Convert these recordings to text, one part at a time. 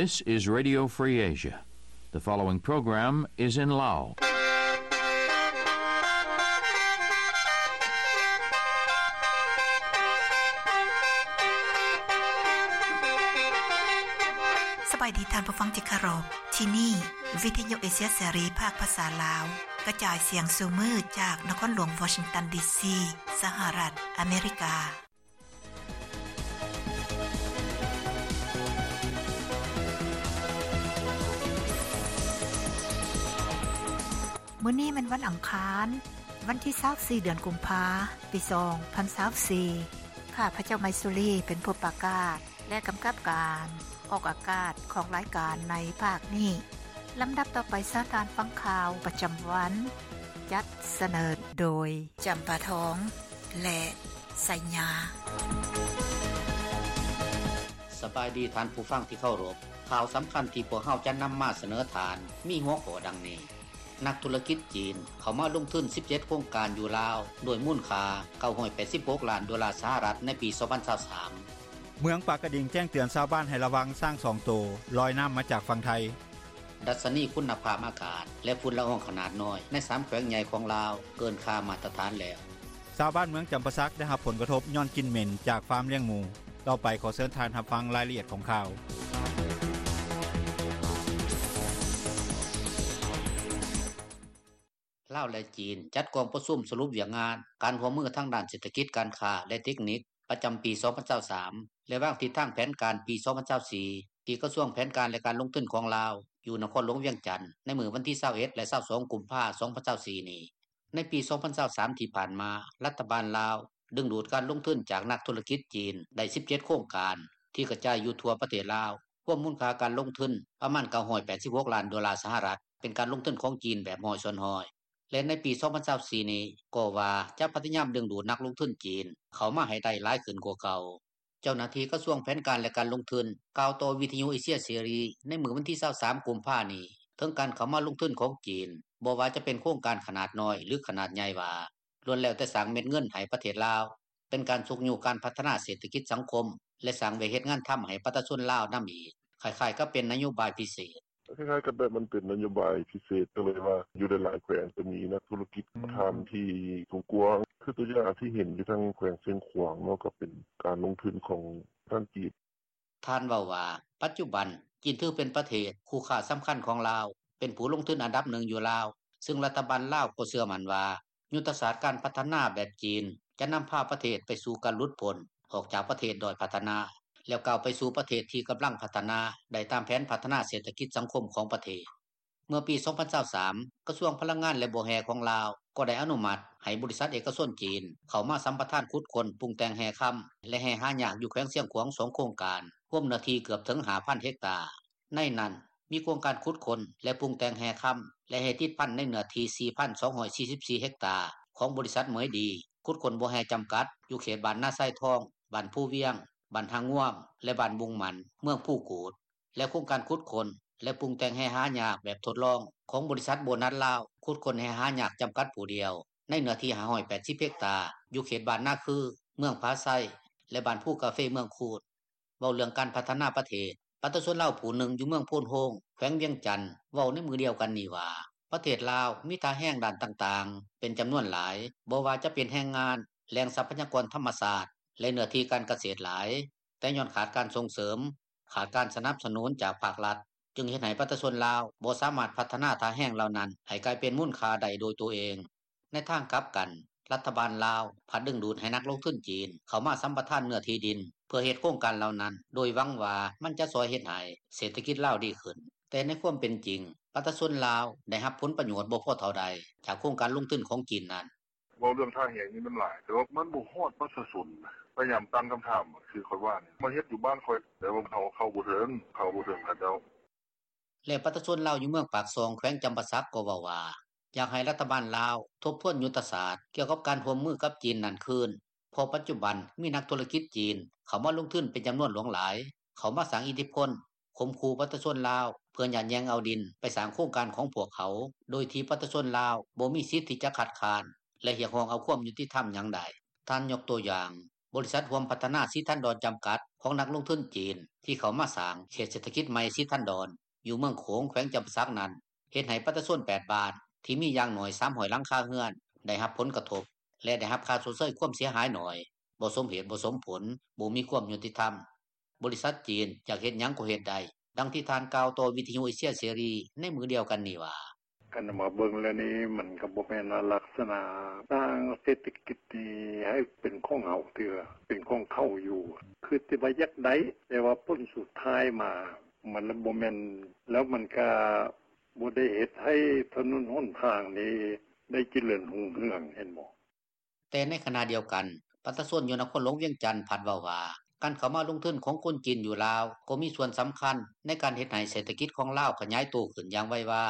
This is Radio Free Asia. The following program is in Lao. ສະບາຍດີທ່ານຜູ້ຟັງທີ່ເຄົາລົບ. ທີ່ນີ້ ວິທະຍຸເອເຊຍເສລີ ພາກພາສາລາວ ກະຈາຍສຽງສູ່ມື້ຈາກນະຄອນຫຼວງວໍຊິງຕັນ ດີຊີ ສະຫະລັດອາເມລິກາ. ມື້ນີ້ແມ່ນວັນອັງຄານ, ວັນທີຊາວສີ່ ເດືອນກຸມພາ ປີສອງພັນຊາວສີ່. ຂ້າພະເຈົ້າ ໄມຊູລີ ເປັນຜູ້ປະກາດ ແລະ ກຳກັບການອອກອາກາດຂອງລາຍການໃນພາກນີ້. ລຳດັບຕໍ່ໄປ ເຊີນທ່ານຟັງຂ່າວປະຈຳວັນ, ຈັດສະເໜີໂດຍ ຈຳປາທອງ ແລະ ໄຊຍາ. ສະບາຍດີທ່ານຜູ້ຟັງທີ່ເຄົາລົບ. ຂ່າວສຳຄັນທີ່ພວກເຮົາຈະນຳມາສະເໜີທ່ານ ມີຫົວຂໍ້ດັ່ງນີ້: ນັກທຸລະກິດຈີນເຂົ້າມາລົງທຶນສິບເຈັດໂຄງການຢູ່ລາວ ດ້ວຍມູນຄ່າເກົ້າຮ້ອຍແປດສິບຫົກລ້ານໂດລາສະຫະລັດໃນປີສອງພັນຊາວສາມ. ເມືອງປາກກະດິງແຈ້ງເຕືອນຊາວບ້ານໃຫ້ລະວັງຊ້າງສອງໂຕລອຍນ້ຳມາຈາກຝັ່ງໄທ. ດັດຊະນີຄຸນນະພາບອາກາດ ແລະ ຝຸ່ນລະອອງຂະໜາດນ້ອຍໃນສາມແຂວງໃຫຍ່ຂອງລາວເກີນຄ່າມາດຕະຖານແລ້ວ. ຊາວບ້ານເມືອງຈຳປາສັກໄດ້ຮັບຜົນກະທົບຍ້ອນກິ່ນເໝັນຈາກຟາມລ້ຽງໝູ. ຕໍ່ໄປຂໍເຊີນທ່ານຮັບຟັງລາຍລະອຽດຂອງຂ່າວ. ລາວ ແລະ ຈີນ ຈັດກອງປະຊຸມສະຫຼຸບວຽກງານການຮ່ວມມືທາງດ້ານເສດຖະກິດ, ການຄ້າ ແລະ ເຕັກນິກ ປະຈຳປີສອງພັນຊາວສາມ ແລະ ວາງທິດທາງແຜນການປີສອງພັນຊາວສີ່ ທີ່ກະຊວງແຜນການ ແລະ ການລົງທຶນຂອງລາວ ຢູ່ນະຄອນຫຼວງວຽງຈັນ ໃນມື້ວັນທີຊາວເອັດ ແລະ ຊາວສອງ ກຸມພາ ສອງພັນຊາວສີ່ນີ້. ໃນປີສອງພັນຊາວສາມທີ່ຜ່ານມາ, ລັດຖະບານລາວດຶງດູດການລົງທຶນຈາກນັກທຸລະກິດຈີນໄດ້ສິບເຈັດໂຄງການ ທີ່ກະຈາຍຢູ່ທົ່ວປະເທດລາວ, ຮວມມູນຄ່າການລົງທຶນປະມານເກົ້າຮ້ອຍແປດສິບຫົກລ້ານໂດລາສະຫະລັດ, ເປັນການລົງທຶນຂອງຈີນແບບຮ້ອຍສ່ວນຮ້ອຍ. ແລະ ໃນປີສອງພັນຊາວສີ່ນີ້ກໍວ່າຈະພະຍາຍາມດຶງດູດນັກລົງທຶນຈີນເຂົ້າມາໃຫ້ໄດ້ຫຼາຍຂຶ້ນກວ່າເກົ່າ. ເຈົ້າໜ້າທີ່ກະຊວງແຜນການ ແລະ ການລົງທຶນ ກ່າວຕໍ່ວິທະຍຸເອເຊຍເສລີໃນມື້ວັນທີຊາວສາມ ກຸມພານີ້ ເຖິງການເຂົ້າມາລົງທຶນຂອງຈີນ, ບໍ່ວ່າຈະເປັນໂຄງການຂະໜາດນ້ອຍ ຫຼື ຂະໜາດໃຫຍ່ວ່າ ລ້ວນແລ້ວແຕ່ສ້າງເມັດເງິນໃຫ້ປະເທດລາວ, ເປັນການຊຸກຍູ້ການພັດທະນາເສດຖະກິດສັງຄົມ ແລະ ສ້າງວຽກເຮັດງານທຳໃຫ້ປະຊາຊົນລາວນຳອີກ, ຄ້າຍໆກັບເປັນນະໂຍບາຍພິເສດ. ຄ້າຍໆກັບແບບມັນເປັນນະໂຍບາຍພິເສດ ກໍເລີຍວ່າຢູ່ຫຼາຍໆແຂວງຈະມີນັກທຸລະກິດ ອືມ ປະທານທີ່ກວ້າງໆ ຄືຕົວຢ່າງທີ່ເຫັນຢູ່ທາງແຂວງຊຽງຂວາງເນາະ ກໍເປັນການລົງທຶນຂອງທາງຈີນ. ທ່ານເວົ້າວ່າ ປັດຈຸບັນ ຈີນຖືເປັນປະເທດຄູ່ຄ້າສຳຄັນຂອງລາວ, ເປັນຜູ້ລົງທຶນອັນດັບໜຶ່ງຢູ່ລາວ, ຊຶ່ງລັດຖະບານລາວກໍເຊື່ອໝັ້ນວ່າ ຍຸດທະສາດການພັດທະນາແບບຈີນ ຈະນຳພາປະເທດໄປສູ່ການຫຼຸດພົ້ນອອກຈາກປະເທດດ້ອຍພັດທະນາ ແລ້ວກ້າວໄປສູ່ປະເທດທີ່ກຳລັງພັດທະນາໄດ້ຕາມແຜນພັດທະນາເສດຖະກິດສັງຄົມຂອງປະເທດ. ເມື່ອປີສອງພັນຊາວສາມ ກະຊວງພະລັງງານ ແລະ ບໍ່ແຮ່ຂອງລາວ ກໍໄດ້ອະນຸມັດໃຫ້ບໍລິສັດເອກະຊົນຈີນເຂົ້າມາສຳປະທານຂຸດຄົ້ນປຸງແຕ່ງແຮ່ຄຳ ແລະ ແຮ່ຫາຍາກຢູ່ແຂວງຊຽງຂວາງສອງໂຄງການ, ຮວມເນື້ອທີ່ເກືອບເຖິງຫ້າພັນເຮັກຕາ. ໃນນັ້ນມີໂຄງການຂຸດຄົ້ນ ແລະ ປຸງແຕ່ງແຮ່ຄຳ ແລະ ແຮ່ຕິດພັນໃນເນື້ອທີ່ສີ່ພັນສອງຮ້ອຍສີ່ສິບສີ່ເຮັກຕາ ຂອງບໍລິສັດເໝີຍດີ ຂຸດຄົ້ນບໍ່ແຮ່ຈຳກັດ ຢູ່ເຂດບ້ານນາຊາຍທອງ, ບ້ານພູວຽງ, ບ້ານທ່າງ່ວມ ແລະ ບ້ານບຸງໝັ້ນ ເມືອງພູກູດ ແລະ ໂຄງການຂຸດຄົ້ນ ແລະ ປຸງແຕ່ງແຮ່ຫາຍາກແບບທົດລອງຂອງບໍລິສັດໂບນັດລາວ ຂຸດຄົ້ນແຮ່ຫາຍາກຈຳກັດຜູ້ດຽວ ໃນເນື້ອທີ່ຫ້າຮ້ອຍແປດສິບເຮັກຕາ ຢູ່ເຂດບ້ານນາຄື, ເມືອງຜາໄຊ ແລະ ບ້ານພູກາເຟ ເມືອງຄູນ. ເວົ້າເລື່ອງການພັດທະນາປະເທດ, ປະຊາຊົນລາວຜູ້ໜຶ່ງຢູ່ເມືອງໂພນໂຮງ ແຂວງວຽງຈັນ ເວົ້າໃນມື້ດຽວກັນນີ້ວ່າ ປະເທດລາວມີທ່າແຮງດ້ານຕ່າງໆເປັນຈຳນວນຫຼາຍ, ບໍ່ວ່າຈະເປັນແຮງງານ, ແຫຼ່ງຊັບພະຍາກອນທຳມະຊາດ ແລະ ເນື້ອທີ່ການກະເສດຫຼາຍ, ແຕ່ຍ້ອນຂາດການສົ່ງເສີມ, ຂາດການສະໜັບສະໜູນຈາກພາກລັດ, ຈຶ່ງເຮັດໃຫ້ປະຊາຊົນລາວບໍ່ສາມາດພັດທະນາທ່າແຮງເຫຼົ່ານັ້ນໃຫ້ກາຍເປັນມູນຄ່າໄດ້ໂດຍຕົວເອງ. ໃນທາງກັບກັນ, ລັດຖະບານລາວພັດດຶງດູດໃຫ້ນັກລົງທຶນຈີນເຂົ້າມາສຳປະທານເນື້ອທີ່ດິນ ເພື່ອເຮັດໂຄງການເຫຼົ່ານັ້ນ, ໂດຍຫວັງວ່າມັນຈະຊ່ອຍເຮັດໃຫ້ເສດຖະກິດລາວດີຂຶ້ນ. ແຕ່ໃນຄວາມເປັນຈິງ, ປະຊາຊົນລາວໄດ້ຮັບຜົນປະໂຫຍດບໍ່ພໍເທົ່າໃດຈາກໂຄງການລົງທຶນຂອງຈີນນັ້ນ. ເວົ້າເລື່ອງທ່າແຮງນີ້ມັນຫຼາຍ, ແຕ່ວ່າມັນບໍ່ຮອດປະຊາຊົນນະ. ພະຍາຍາມຕັ້ງຄຳຖາມ, ຄືຂ້ອຍວ່ານີ້ ມາເຮັດຢູ່ບ້ານຂ້ອຍ, ແຕ່ວ່າເຮົາເຂົ້າບໍ່ເຖິງ, ເຂົ້າບໍ່ເຖິງເຂົາເຈົ້າ. ແລະ ປະຊາຊົນລາວຢູ່ເມືອງປາກຊ່ອງ ແຂວງຈຳປາສັກ ກໍເວົ້າວ່າ ຢາກໃຫ້ລັດຖະບານລາວທົບທວນຍຸດທະສາດກ່ຽວກັບການຮ່ວມມືກັບຈີນນັ້ນຄືນ, ເພາະປັດຈຸບັນມີນັກທຸລະກິດຈີນເຂົ້າມາລົງທຶນເປັນຈຳນວນຫຼວງຫຼາຍ, ເຂົ້າມາສ້າງອິດທິພົນ, ຂົ່ມຂູ່ປະຊາຊົນລາວ ເພື່ອຍາດແຍ່ງເອົາດິນໄປສ້າງໂຄງການຂອງພວກເຂົາ, ໂດຍທີ່ປະຊາຊົນລາວບໍ່ມີສິດທີ່ຈະຄັດຄ້ານ ແລະ ຮຽກຮ້ອງເອົາຄວາມຍຸຕິທຳຫຍັງໄດ້. ທ່ານຍົກຕົວຢ່າງ, ບໍລິສັດຮ່ວມພັດທະນາສີທັນດອນຈຳກັດ ຂອງນັກລົງທຶນຈີນ ທີ່ເຂົ້າມາສ້າງເຂດເສດຖະກິດໃໝ່ສີທັນດອນ ຢູ່ເມືອງໂຂງ ແຂວງຈຳປາສັກນັ້ນ ເຮັດໃຫ້ປະຊາຊົນ ແປດບ້ານ ທີ່ມີຢ່າງໜ້ອຍ 300 ຫຼັງຄາເຮືອນ ໄດ້ຮັບຜົນກະທົບ ແລະໄດ້ຮັບຄ່າຊົດເຊີຍຄວາມເສຍຫາຍໜ້ອຍ, ບໍ່ສົມເຫດສົມຜົນ, ບໍ່ມີຄວາມຍຸຕິທຳ. ບໍລິສັດຈີນຢາກເຮັດຫຍັງກໍເຮັດໄດ້ ດັ່ງທີ່ທ່ານກ່າວຕໍ່ວິທຍຸເອເຊຍເສລີ ໃນມື້ດຽວກັນນີ້ວ່າ: “ຄັນມາເບິ່ງແລ້ວນີ້ ມັນກໍບໍ່ແມ່ນລັກສະນະສ້າງເສດຖະກິດນີ້ໃຫ້ເປັນຂອງເຮົາເທື່ອ ເປັນຂອງເຂົາຢູ່ ຄືຊິວ່າຢາກໄດ້ ແຕ່ວ່າຜົນສຸດທ້າຍມາ ມັນບໍ່ແມ່ນ ແລ້ວມັນກໍບໍ່ໄດ້ເຮັດໃຫ້ຖະໜົນຫົນທາງນີ້ ໄດ້ຈະເລີນຮຸ່ງເຮືອງ ເຫັນບໍ່.” ແຕ່ໃນຂະນະດຽວກັນ ປະຊາຊົນຢູ່ນະຄອນຫຼວງວຽງຈັນ ພັດເວົ້າວ່າ ການເຂົ້າມາລົງທຶນຂອງຄົນຈີນຢູ່ລາວ ກໍມີສ່ວນສຳຄັນໃນການເຮັດໃຫ້ເສດຖະກິດຂອງລາວຂະຫຍາຍໂຕຂຶ້ນຢ່າງໄວວາ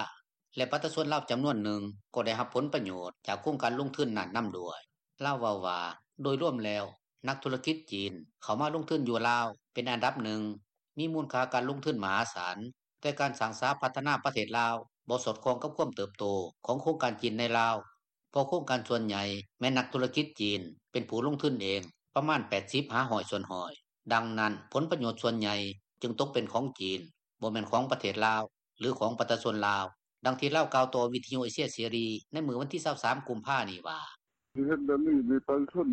ແລະປະຊາຊົນລາວຈຳນວນໜຶ່ງ ກໍໄດ້ຮັບຜົນປະໂຫຍດຈາກໂຄງການລົງທຶນນັ້ນນຳດ້ວຍ. ລາວເວົ້າວ່າ ໂດຍລວມແລ້ວ ນັກທຸລະກິດຈີນ ເຂົ້າມາລົງທຶນຢູ່ລາວ ເປັນອັນດັບໜຶ່ງ ມີມູນຄ່າການລົງທຶນມະຫາສານ, ແຕ່ການສ້າງສາພັດທະນາປະເທດລາວ ບໍ່ສອດຄ່ອງກັບຄວາມເຕີບໂຕ ຂອງໂຄງການຈີນໃນລາວ ເພາະໂຄງການສ່ວນໃຫຍ່ ແມ່ນນັກທຸລະກິດຈີນ ເປັນຜູ້ລົງທຶນເອງ ປະມານ 80-100%. ດັ່ງນັ້ນ ຜົນປະໂຫຍດສ່ວນໃຫຍ່ ຈຶ່ງຕົກເປັນຂອງຈີນ ບໍ່ແມ່ນຂອງປະເທດລາວ ຫຼືຂອງປະຊາຊົນລາວ. ດັ່ງທີ່ລາວກ່າວຕໍ່ວິທຍຸເອເຊຍເສລີ ໃນມື້ວັນທີ 23 ກຸມພານີ້ວ່າ: “ຊິເຮັດແບບນີ້ ປະຊາຊົນ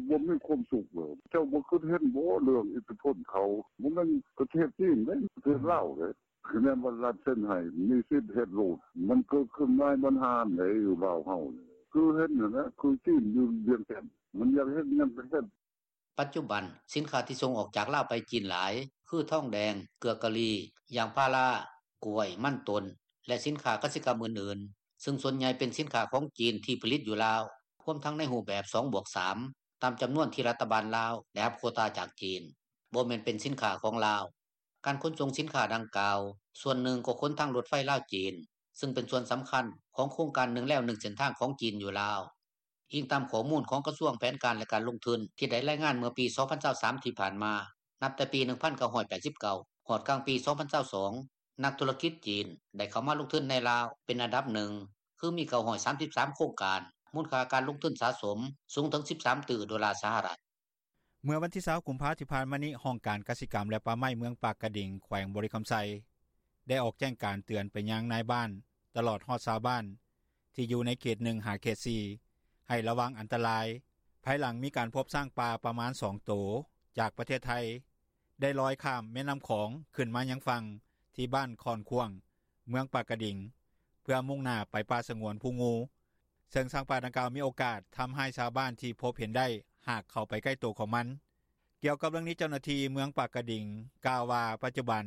ບໍ່ມີຄວາມສຸກເລີຍ ເຈົ້າບໍ່ຄິດເຫັນບໍ່ ເລື່ອງອິດທິພົນເຂົາ ບໍ່ແມ່ນປະເທດຈີນເດ້ ປະເທດລາວເດ້ ຄະແນນວ່າລັດເຊັນໃຫ້ ມີສິດເຮັດໂລດ ມັນເກີດຂຶ້ນຫຼາຍບັນຫາໃດ ຢູ່ລາວເຮົານີ້ ຄືເຫັນຫັ້ນແຫຼະ ຄືຈີນຢູ່ວຽງຈັນ ມັນຢາກເຮັດຫຍັງກໍເຮັດ.” ປັດຈຸບັນ ສິນຄ້າທີ່ສົ່ງອອກຈາກລາວໄປຈີນຫຼາຍ ຄືທອງແດງ, ເກືອກາລີ, ຢາງພາລາ, ກ້ວຍ, ມັນຕົ້ນ ແລະສິນຄ້າກະສິກຳອື່ນໆ ຊຶ່ງສ່ວນໃຫຍ່ເປັນສິນຄ້າຂອງຈີນ ທີ່ຜະລິດຢູ່ລາວ ຮວມທັງໃນຮູບແບບ ສອງບວກສາມ ຕາມຈຳນວນທີ່ລັດຖະບານລາວ ໄດ້ຮັບໂຄຕາຈາກຈີນ ບໍ່ແມ່ນເປັນສິນຄ້າຂອງລາວ. ການຂົນສົ່ງສິນຄ້າດັ່ງກ່າວ ສ່ວນໜຶ່ງກໍຂົນທາງລົດໄຟລາວ-ຈີນ ຊຶ່ງເປັນສ່ວນສຳຄັນຂອງໂຄງການໜຶ່ງແລວໜຶ່ງເສັ້ນທາງຂອງຈີນຢູ່ລາວ. ອີງຕາມຂໍ້ມູນຂອງກະຊວງແຜນການ ແລະການລົງທຶນ ທີ່ໄດ້ລາຍງານເມື່ອປີ 2023 ທີ່ຜ່ານມາ ນັບແຕ່ປີ 1989 ຮອດກາງປີ 2022 ນັກທຸລະກິດຈີນ ໄດ້ເຂົ້າມາລົງທຶນໃນລາວ ເປັນອັນດັບໜຶ່ງ ຄືມີ 933 ໂຄງການ ມູນຄ່າການລົງທຶນສະສົມ ສູງເຖິງ 13 ຕື້ໂດລາສະຫະລັດ. ເມື່ອວັນທີ 20 ກຸມພາ ທີ່ຜ່ານມານີ້ ຫ້ອງການກະສິກຳ ແລະປ່າໄມ້ ເມືອງປາກກະດິງ ແຂວງບໍລິຄຳໄຊ ໄດ້ອອກແຈ້ງການເຕືອນໄປຍັງນາຍບ້ານ ຕະຫຼອດຮອດຊາວບ້ານ ທີ່ຢູ່ໃນເຂດ 1 ຫາເຂດ 4 ໃຫ້ລະວັງອັນຕະລາຍ ພາຍຫຼັງມີການພົບຊ້າງປ່າປະມານ 2 ໂຕ ຈາກປະເທດໄທ ໄດ້ລອຍຂ້າມແມ່ນ້ຳຂອງ ຂຶ້ນມາຍັງຝັ່ງ ທີ່ບ້ານຄ້ອນຂວ້າງ ເມືອງປາກກະດິງ ເພື່ອມຸ້ງໜ້າໄປປ່າສະຫງວນພູງູ ເຊິ່ງຊ້າງປ່າດັ່ງກ່າວ ມີໂອກາດທຳຮ້າຍຊາວບ້ານທີ່ພົບເຫັນໄດ້ ຫາກເຂົ້າໄປໃກ້ໂຕຂອງມັນ. ກ່ຽວກັບເລື່ອງນີ້ ເຈົ້າໜ້າທີ່ເມືອງປາກກະດິງ ກ່າວວ່າ ປັດຈຸບັນ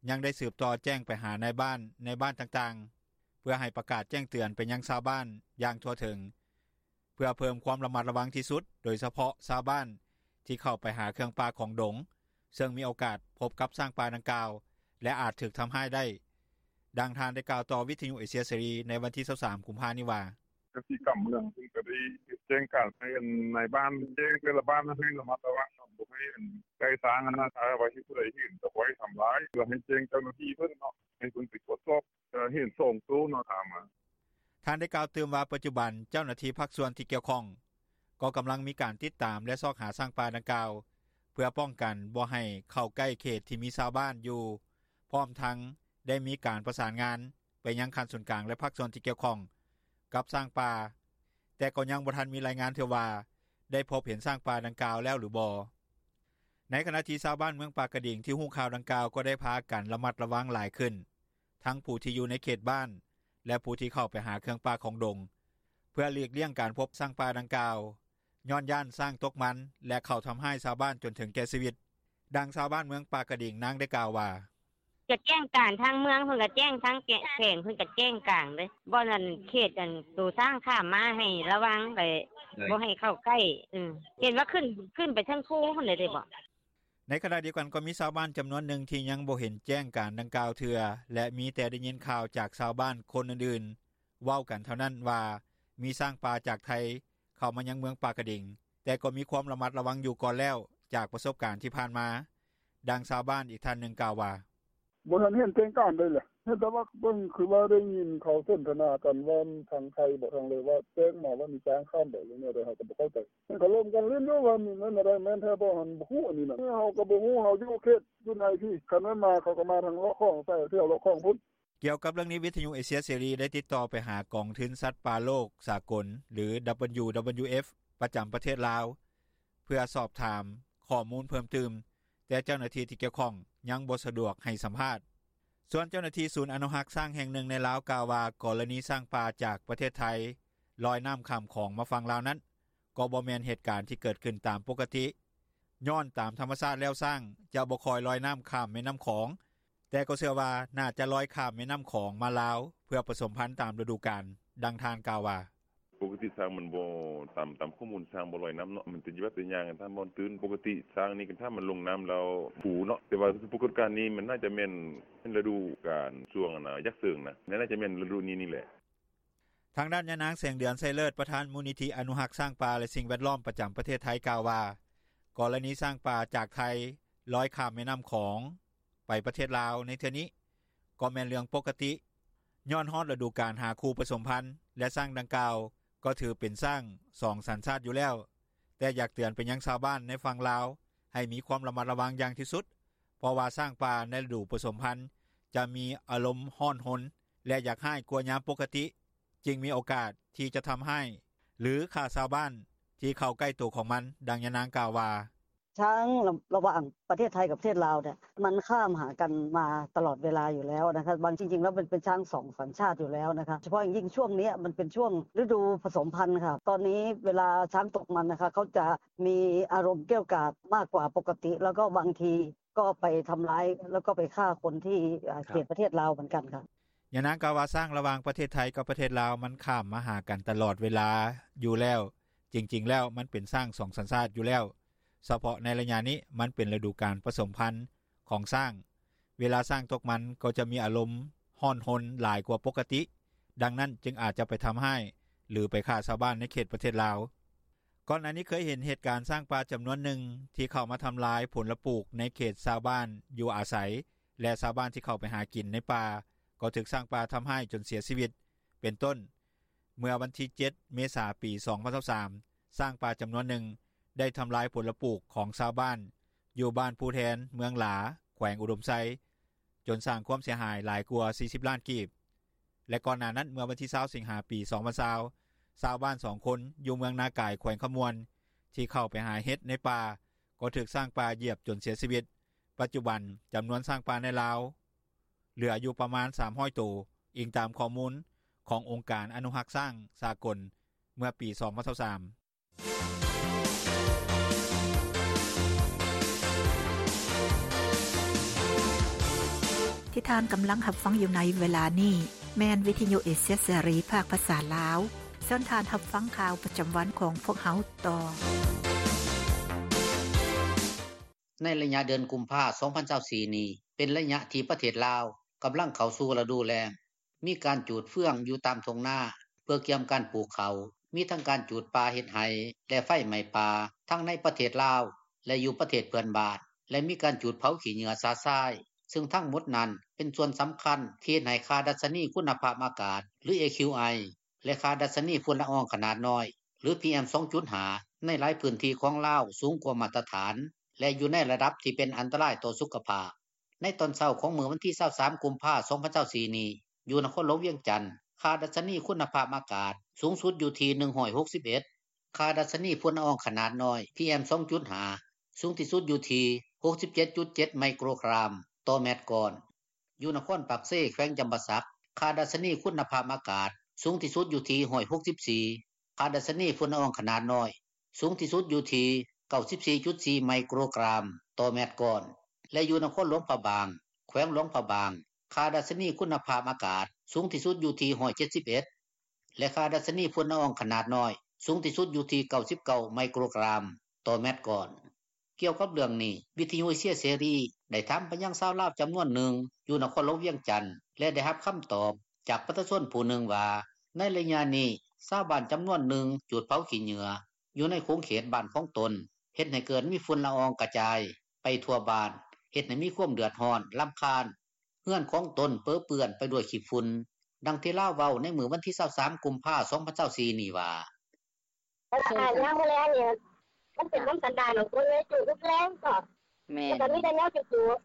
ຍັງໄດ້ສືບຕໍ່ແຈ້ງໄປຫານາຍບ້ານ ໃນບ້ານຕ່າງໆ ເພື່ອໃຫ້ປະກາດແຈ້ງເຕືອນໄປຍັງຊາວບ້ານ ຢ່າງທົ່ວເຖິງ ເພື່ອເພີ່ມຄວາມລະມັດລະວັງທີ່ສຸດ ໂດຍສະເພາະຊາວບ້ານ ທີ່ເຂົ້າໄປຫາເຄື່ອງປ່າຂອງດົງ ເຊິ່ງມີໂອກາດພົບກັບຊ້າງປ່າດັ່ງກ່າວ ແລະອາດຖືກທຳຮ້າຍໄດ້. ດັ່ງທ່ານໄດ້ກ່າວຕໍ່ວິທຍຸເອເຊຍເສລີ ໃນວັນທີ 23 ກຸມພານີ້ວ່າ: “ກະສິກຳເມືອງເພິ່ນກໍໄດ້ແຈ້ງການໃຫ້ນາຍບ້ານ ແຈ້ງແຕ່ລະບ້ານໃຫ້ລະມັດລະວັງ ບໍ່ໃຫ້ໃກ້ຊ້າງຫັ້ນນ່າ ຖ້າວ່າຜູ້ໃດເຫັນກໍບໍ່ໃຫ້ທຳຮ້າຍ ແລ້ວໃຫ້ແຈ້ງເຈົ້າໜ້າທີ່ເພິ່ນເນາະ ໃຫ້ເພິ່ນໄປກວດສອບ ເຫັນ 2 ໂຕເນາະ ຖາມມາ.” ທ່ານໄດ້ກ່າວຕື່ມວ່າ ປັດຈຸບັນ ເຈົ້າໜ້າທີ່ພາກສ່ວນທີ່ກ່ຽວຂ້ອງ ກໍກຳລັງມີການຕິດຕາມ ແລະຊອກຫາຊ້າງປ່າດັ່ງກ່າວ ເພື່ອປ້ອງກັນບໍ່ໃຫ້ເຂົ້າໃກ້ເຂດທີ່ມີຊາວບ້ານຢູ່ ພ້ອມທັງໄດ້ມີການປະສານງານ ໄປຍັງຂັ້ນສູນກາງ ແລະພາກສ່ວນທີ່ກ່ຽວຂ້ອງ ກັບຊ້າງປ່າ ແຕ່ກໍຍັງບໍ່ທັນມີລາຍງານເທື່ອວ່າ ໄດ້ພົບເຫັນຊ້າງປ່າດັ່ງກ່າວແລ້ວ ຫຼືບໍ່. ໃນຂະນະທີ່ຊາວບ້ານເມືອງປາກກະດິງ ທີ່ຮູ້ຂ່າວດັ່ງກ່າວ ກໍໄດ້ພາກັນລະມັດລະວັງຫຼາຍຂຶ້ນ ທັງຜູ້ທີ່ຢູ່ໃນເຂດບ້ານ ແລະຜູ້ທີ່ເຂົ້າໄປຫາເຄື່ອງປ່າຂອງດົງ ເພື່ອຫຼີກລ້ຽງການພົບຊ້າງປ່າດັ່ງກ່າວ ຍ້ອນຢ້ານຊ້າງຕົກມັນ ແລະເຂົ້າທຳຮ້າຍຊາວບ້ານຈົນເຖິງແກ່ຊີວິດ. ດັ່ງຊາວບ້ານເມືອງປາກກະດິງ ນາງໄດ້ກ່າວວ່າ: “ກະແຈ້ງການ ທາງເມືອງເພິ່ນກະແຈ້ງ ທາງແຂວງເພິ່ນກະແຈ້ງການເດ້ ບ່ອນເຂດອັນໂຕຊ້າງຂ້າມມາ ໃຫ້ລະວັງໄປ ບໍ່ໃຫ້ເຂົ້າໃກ້ ເຫັນວ່າຂຶ້ນ ຂຶ້ນໄປເທິງພູພຸ້ນແຫຼະເດເບາະ.” ໃນຂະນະດຽວກັນ ກໍມີຊາວບ້ານຈຳນວນໜຶ່ງ ທີ່ຍັງບໍ່ເຫັນແຈ້ງການດັ່ງກ່າວເທື່ອ ແລະມີແຕ່ໄດ້ຍິນຂ່າວຈາກຊາວບ້ານຄົນອື່ນໆ ເວົ້າກັນເທົ່ານັ້ນວ່າ ມີຊ້າງປ່າຈາກໄທ ເຂົ້າມາຍັງເມືອງປາກກະດິງ ແຕ່ກໍມີຄວາມລະມັດລະວັງຢູ່ກ່ອນແລ້ວ ຈາກປະສົບການທີ່ຜ່ານມາ. ດັ່ງຊາວບ້ານອີກທ່ານໜຶ່ງກ່າວວ່າ: ບໍ່ທັນເຫັນແຈ້ງການໃດແຫຼະ ເຫັນແຕ່ວ່າເບິ່ງຄືວ່າໄດ້ຍິນເຂົາສົນທະນາກັນວ່າທາງໄທບໍທາງເລີວ່າແຈ້ງມາວ່າມີຊ້າງຂ້າມໄປແນວໃດ ເຮົາກໍບໍ່ເຂົ້າໃຈ ເຫັນເຂົາລົມກັນຫຼິ້ນຢູ່ວ່າແມ່ນແທ້ບໍ່ຫັ້ນ ບໍ່ຮູ້ອັນນີ້ນະ ເຮົາກໍບໍ່ຮູ້ ເຮົາຢູ່ເຂດຢູ່ໃນພີ້ ຄັນແມ່ນມາເຂົາກໍມາທາງເລາະຂອງໃສ່ແຖວເລາະຂອງພຸ້ນ.” ກ່ຽວກັບເລື່ອງນີ້ ວິທຍຸເອເຊຍເສລີ ໄດ້ຕິດຕໍ່ໄປຫາກອງທຶນສັດປ່າໂລກສາກົນ ຫຼື WWF ປະຈຳປະເທດລາວ ເພື່ອສອບຖາມຂໍ້ມູນເພີ່ມຕື່ມ ແຕ່ເຈົ້າໜ້າທີ່ທີ່ກ່ຽວຂ້ອງຍັງບໍ່ສະດວກໃຫ້ສຳພາດ. ສ່ວນເຈົ້າໜ້າທີ່ສູນອະນຸຮັກຊ້າງແຫ່ງໜຶ່ງໃນລາວກ່າວວ່າ ກໍລະນີຊ້າງປ່າຈາກປະເທດໄທລອຍນ້ຳຂ້າມຂອງມາຝັ່ງລາວນັ້ນ ກໍບໍ່ແມ່ນເຫດການທີ່ເກີດຂຶ້ນຕາມປົກກະຕິ ຍ້ອນຕາມທຳມະຊາດແລ້ວຊ້າງຈະບໍ່ຄ່ອຍລອຍນ້ຳຂ້າມແມ່ນ້ຳຂອງ ແຕ່ກໍເຊື່ອວ່າໜ້າຈະລອຍຂ້າມແມ່ນ້ຳຂອງມາລາວ ເພື່ອປະສົມພັນຕາມລະດູການ. ດັ່ງທ່ານກ່າວວ່າ: “ປົກກະຕິຊ້າງມັນບໍ່ ຕາມຂໍ້ມູນຊ້າງບໍ່ລອຍນ້ຳເນາະ ມັນຈະແບບໄປຍ່າງຕາມບ່ອນຕື້ນ ປົກກະຕິຊ້າງນີ້ຄັນຖ້າມັນລົງນ້ຳແລ້ວຟູເນາະ ແຕ່ວ່າປາກົດການນີ້ມັນໜ້າຈະແມ່ນລະດູການຊ່ວງຢາກເສີງນະ ໜ້າຈະແມ່ນລະດູນີ້ນີ້ແຫຼະ.” ທາງດ້ານຍານາງ ແສງເດືອນ ໄຊເລີດ ປະທານມູນນິທິອະນຸຮັກຊ້າງປ່າ ແລະ ສິ່ງແວດລ້ອມປະຈຳປະເທດໄທກ່າວວ່າ ກໍລະນີຊ້າງປ່າຈາກໄທລອຍຂ້າມແມ່ນ້ຳຂອງໄປປະເທດລາວໃນເທື່ອນີ້ ກໍແມ່ນເລື່ອງປົກກະຕິ ຍ້ອນຮອດລະດູການຫາຄູ່ປະສົມພັນ ແລະ ຊ້າງດັ່ງກ່າວກໍຖືເປັນຊ້າງສອງສັນຊາດຢູ່ແລ້ວ ແຕ່ຢາກເຕືອນໄປຍັງຊາວບ້ານໃນຝັ່ງລາວໃຫ້ມີຄວາມລະມັດລະວັງຢ່າງທີ່ສຸດ ເພາະວ່າຊ້າງປ່າໃນລະດູປະສົມພັນຈະມີອາລົມຮ້ອນຮົນ ແລະ ຢາກຮ້າຍກວ່າຍາມປົກກະຕິ ຈຶ່ງມີໂອກາດທີ່ຈະທຳຮ້າຍ ຫຼື ຂ້າຊາວບ້ານທີ່ເຂົ້າໃກ້ໂຕຂອງມັນ. ດັ່ງຍານາງກ່າວວ່າ: “ຊ້າງລະຫວ່າງປະເທດໄທກັບປະເທດລາວເນ່ຍ ມັນຂ້າມຫາກັນມາຕະຫຼອດເວລາຢູ່ແລ້ວນະຄະ ບາງ ຈິງໆແລ້ວມັນເປັນຊ້າງສອງສັນຊາດຢູ່ແລ້ວນະຄະ ໂດຍສະເພາະຢ່າງຍິ່ງຊ່ວງນີ້ມັນເປັນຊ່ວງລະດູປະສົມພັນນະຄະ ຕອນນີ້ເວລາຊ້າງຕົກມັນນະຄະ ເຂົາຈະມີອາລົມກ້ຽວກາດມາກກວ່າປົກກະຕິ ແລ້ວກໍບາງທີ ກໍໄປທຳລາຍ ແລ້ວກໍໄປຂ້າຄົນທີ່ເຂດປະເທດລາວເໝືອນກັນ.” ຍານາງກ່າວວ່າ ຊ້າງລະຫວ່າງປະເທດໄທກັບປະເທດລາວມັນຂ້າມມາຫາກັນຕະຫຼອດເວລາຢູ່ແລ້ວ ຈິງໆແລ້ວມັນເປັນຊ້າງສອງສັນຊາດຢູ່ແລ້ວ ສະເພາະໃນໄລຍະນີ້ມັນເປັນລະດູການປະສົມພັນຂອງຊ້າງ ເວລາຊ້າງຕົກມັນກໍຈະມີອາລົມຮ້ອນຮົນຫຼາຍກວ່າປົກກະຕິ ດັ່ງນັ້ນຈຶ່ງອາດຈະໄປທຳຮ້າຍ ຫຼື ໄປຂ້າຊາວບ້ານໃນເຂດປະເທດລາວ. ກ່ອນໜ້ານີ້ເຄີຍເຫັນເຫດການຊ້າງປ່າຈຳນວນໜຶ່ງທີ່ເຂົ້າມາທຳລາຍຜົນລະປູກໃນເຂດຊາວບ້ານຢູ່ອາໄສ ແລະ ຊາວບ້ານທີ່ເຂົ້າໄປຫາກິນໃນປ່າ ກໍຖືກຊ້າງປ່າທຳຮ້າຍຈົນເສຍຊີວິດ ເປັນຕົ້ນ ເມື່ອວັນທີເຈັດ ເມສາ ປີສອງພັນຊາວສາມ ຊ້າງປ່າຈຳນວນໜຶ່ງໄດ້ທຳລາຍຜົນລະປູກຂອງຊາວບ້ານຢູ່ບ້ານພູແທນ ເມືອງຫຼາ ແຂວງອຸດົມໄຊ ຈົນສ້າງຄວາມເສຍຫາຍຫຼາຍກວ່າສີ່ສິບລ້ານກີບ ແລະ ກ່ອນໜ້ານັ້ນເມື່ອວັນທີຊາວ ສິງຫາ ປີສອງພັນຊາວ ຊາວບ້ານສອງຄົນຢູ່ເມືອງນາກາຍ ແຂວງຄຳມ່ວນ ທີ່ເຂົ້າໄປຫາເຫັດໃນປ່າ ກໍຖືກຊ້າງປ່າຢຽບຈົນເສຍຊີວິດ. ປັດຈຸບັນຈຳນວນຊ້າງປ່າໃນລາວເຫຼືອຢູ່ປະມານສາມຮ້ອຍໂຕ, ອີງຕາມຂໍ້ມູນຂອງອົງການອະນຸຮັກຊ້າງສາກົນເມື່ອປີສອງພັນຊາວສາມ. ທີ່ທ່ານກຳລັງຮັບຟັງຢູ່ໃນເວລານີ້ ແມ່ນວິທະຍຸເອເຊຍເສລີ ພາກພາສາລາວ. ເຊີນທ່ານຮັບຟັງຂ່າວປະຈຳວັນຂອງພວກເຮົາຕໍ່. ໃນໄລຍະເດືອນກຸມພາ ສອງພັນຊາວສີ່ນີ້ ເປັນໄລຍະທີ່ປະເທດລາວກຳລັງເຂົ້າສູ່ລະດູແລ້ງ. ມີການຈູດເຟືອງຢູ່ຕາມທົ່ງນາ ເພື່ອກຽມການປູກເຂົ້າ, ມີທັງການຈູດປ່າເຮັດໄຮ່ ແລະ ໄຟໄໝ້ປ່າ ທັງໃນປະເທດລາວ ແລະ ຢູ່ປະເທດເພື່ອນບ້ານ ແລະ ມີການຈູດເຜົາຂີ້ເຫຍື້ອຊະຊາຍ ຊຶ່ງທັງໝົດນັ້ນເປັນສ່ວນສຳຄັນທີ່ເຮັດໃຫ້ຄ່າດັດຊະນີຄຸນນະພາບອາກາດ ຫຼື ເອຄິວໄອ ແລະ ຄ່າດັດຊະນີຝຸ່ນລະອອງຂະໜາດນ້ອຍ ຫຼື ພີເອັມ ສອງຈຸດຫ້າ ໃນຫຼາຍພື້ນທີ່ຂອງລາວສູງກວ່າມາດຕະຖານ ແລະ ຢູ່ໃນລະດັບທີ່ເປັນອັນຕະລາຍຕໍ່ສຸຂະພາບ. ໃນຕອນເຊົ້າຂອງມື້ວັນທີຊາວສາມ ກຸມພາ ສອງພັນຊາວສີ່ນີ້ ຢູ່ນະຄອນຫຼວງວຽງຈັນ ຄ່າດັດຊະນີຄຸນນະພາບອາກາດສູງສຸດຢູ່ທີ່ໜຶ່ງຮ້ອຍຫົກສິບເອັດ, ຄ່າດັດຊະນີຝຸ່ນລະອອງຂະໜາດນ້ອຍ ພີເອັມ ສອງຈຸດຫ້າ ສູງທີ່ສຸດຢູ່ທີ່ຫົກສິບເຈັດຈຸດເຈັດໄມໂຄຣກຣາມຕໍ່ແມັດກ້ອນ. ຢູ່ນະຄອນປາກເຊ ແຂວງຈຳປາສັກ ຄ່າດັດຊະນີຄຸນນະພາບອາກາດສູງທີ່ສຸດຢູ່ທີ່ຮ້ອຍຫົກສິບສີ່, ຄ່າດັດຊະນີຝຸ່ນລະອອງຂະໜາດນ້ອຍສູງທີ່ສຸດຢູ່ທີ່ເກົ້າສິບສີ່ຈຸດສີ່ໄມໂຄຣກຣາມຕໍ່ແມັດກ້ອນ ແລະ ຢູ່ນະຄອນຫຼວງພະບາງ ແຂວງຫຼວງພະບາງ ຄ່າດັດຊະນີຄຸນນະພາບອາກາດສູງທີ່ສຸດຢູ່ທີ່ຮ້ອຍເຈັດສິບເອັດ ແລະ ຄ່າດັດຊະນີຝຸ່ນລະອອງຂະໜາດນ້ອຍສູງທີ່ສຸດຢູ່ທີ່ເກົ້າສິບເກົ້າໄມໂຄຣກຣາມຕໍ່ແມັດກ້ອນ. ກ່ຽວກັບເລື່ອງນີ້ ວິທະຍຸເອເຊຍເສລີໄດ້ຖາມໄປຍັງຊາວລາວຈຳນວນໜຶ່ງຢູ່ນະຄອນຫຼວງວຽງຈັນ ແລະ ໄດ້ຮັບຄຳຕອບຈາກປະຊາຊົນຜູ້ໜຶ່ງວ່າ ໃນໄລຍະນີ້ ຊາວບ້ານຈຳນວນໜຶ່ງຈູດເຜົາຂີ້ເຫຍື້ອຢູ່ໃນຂົງເຂດບ້ານຂອງຕົນ ເຮັດໃຫ້ເກີດມີຝຸ່ນລະອອງກະຈາຍໄປທົ່ວບ້ານ ເຮັດໃຫ້ມີຄວາມເດືອດຮ້ອນລຳຄານ. ເຮືອນຂອງຕົນເປິເປື້ອນໄປດ້ວຍຂີ້ຝຸ່ນ. ດັ່ງທີ່ລາວເວົ້າໃນມື້ວັນທີ 23 ກຸມພາ 2024 ນີ້ວ່າ: "ຍາມມື້ແລງນີ້ ມັນເປັນນຳສັນດານຂອງຄົນເລີຍ ຈູດທຸກແລງເນາະ ແລ້ວກໍມີແຕ່ແນວຈູດ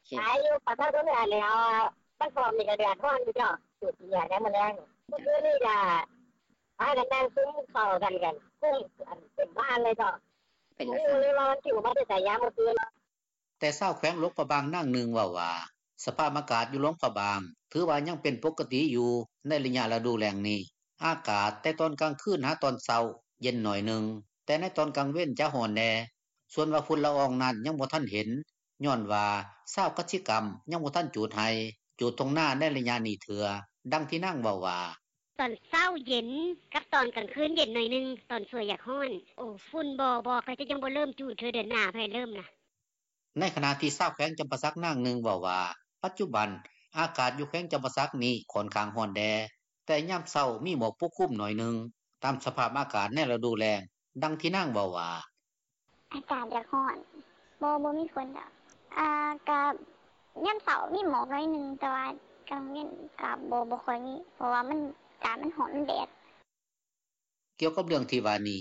ໆ ຂາຍຢູ່ ປະຊາຊົນນີ້ແຫຼະ ມັນພ້ອມນີ້ກໍເດືອດຮ້ອນຢູ່ເນາະ ຈູດເຫຍື້ອຍາມມື້ແລງ ມື້ຄືນນີ້ກໍພາກັນນັ່ງຊຸມເຂົ້າກັນ ກຸ້ມເຕັມບ້ານເລີຍເນາະ ບໍ່ຮູ້ເລີຍວ່າມັນຊິມາແຕ່ໃສ ຍາມມື້ຄືນ." ແຕ່ຊາວແຂວງຫຼວງພະບາງນາງໜຶ່ງເວົ້າວ່າ ສະພາບອາກາດຢູ່ຫຼວງພະບາງ ຖືວ່າຍັງເປັນປົກກະຕິຢູ່ໃນໄລຍະລະດູແລ້ງນີ້ ອາກາດແຕ່ຕອນກາງຄືນຫາຕອນເຊົ້າ ເຢັນໜ້ອຍໜຶ່ງ ແຕ່ໃນຕອນກາງເວັນຈະຮ້ອນແດ່. ສ່ວນວ່າຝຸ່ນລະອອງນັ້ນຍັງບໍ່ທັນເຫັນ ຍ້ອນວ່າຊາວກະສິກຳຍັງບໍ່ທັນຈູດໄຮ່ ຈູດທົ່ງນາໃນໄລຍະນີ້ເທື່ອ. ດັ່ງທີ່ນາງເວົ້າວ່າ: "ຕອນເຊົ້າເຢັນ ກັບຕອນກາງຄືນເຢັນໜ້ອຍໜຶ່ງ ຕອນສວຍຢາກຮ້ອນ ໂອ ຝຸ່ນບໍ່ ບໍ່ ເຂົາເຈົ້າຍັງບໍ່ເລີ່ມຈູດເທື່ອ ເດືອນໜ້າເພິ່ນເລີ່ມນະ." ໃນຂະນະທີ່ຊາວແຂວງຈຳປາສັກນາງໜຶ່ງເວົ້າວ່າ ປັດຈຸບັນອາກາດຢູ່ແຂວງຈຳປາສັກນີ້ຂ້ອນຂ້າງຮ້ອນແດ່ ແຕ່ຍາມເຊົ້າມີໝອກປົກຄຸມໜ້ອຍໜຶ່ງ ຕາມສະພາບອາກາດໃນລະດູແລ້ງ. ດັ່ງທີ່ນາງເວົ້າວ່າ: "ອາກາດຢາກຮ້ອນ ບໍ່ ບໍ່ມີຝົນດອກ ອາ ກະຍາມເຊົ້າມີໝອກໜ້ອຍໜຶ່ງ ແຕ່ວ່າກາງເວັນກະບໍ່ ບໍ່ຄ່ອຍມີ ເພາະວ່າມັນ ອາກາດມັນຮ້ອນ ມັນແດດ." ກ່ຽວກັບເລື່ອງທີ່ວ່ານີ້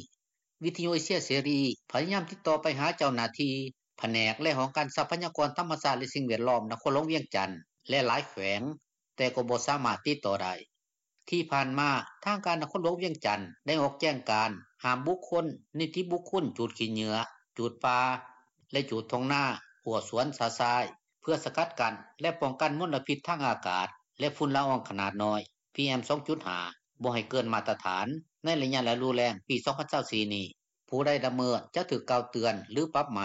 ວິທຍຸເອເຊຍເສລີ ພະຍາຍາມຕິດຕໍ່ໄປຫາເຈົ້າໜ້າທີ່ ພະແນກ ແລະ ຫ້ອງການຊັບພະຍາກອນທຳມະຊາດ ແລະ ສິ່ງແວດລ້ອມ ນະຄອນຫຼວງວຽງຈັນ ແລະ ຫຼາຍແຂວງ ແຕ່ກໍບໍ່ສາມາດຕິດຕໍ່ໄດ້. ທີ່ຜ່ານມາ ທາງການນະຄອນຫຼວງວຽງຈັນ ໄດ້ອອກແຈ້ງການຫ້າມບຸກຄົນ, ນິຕິບຸກຄົນ ຈູດຂີ້ເຫຍື້ອ, ຈູດປ່າ ແລະ ຈູດທົ່ງນາ, ຮົ້ວສວນຊະຊາຍ ເພື່ອສະກັດກັ້ນ ແລະ ປ້ອງກັນມົນລະພິດທາງອາກາດ ແລະ ຝຸ່ນລະອອງຂະໜາດນ້ອຍ ພີເອັມ 2.5 ບໍ່ໃຫ້ເກີນມາດຕະຖານ ໃນໄລຍະລະດູແລ້ງປີ 2024 ນີ້. ຜູ້ໃດລະເມີດຈະຖືກກ່າວເຕືອນ ຫຼື ປັບໃໝ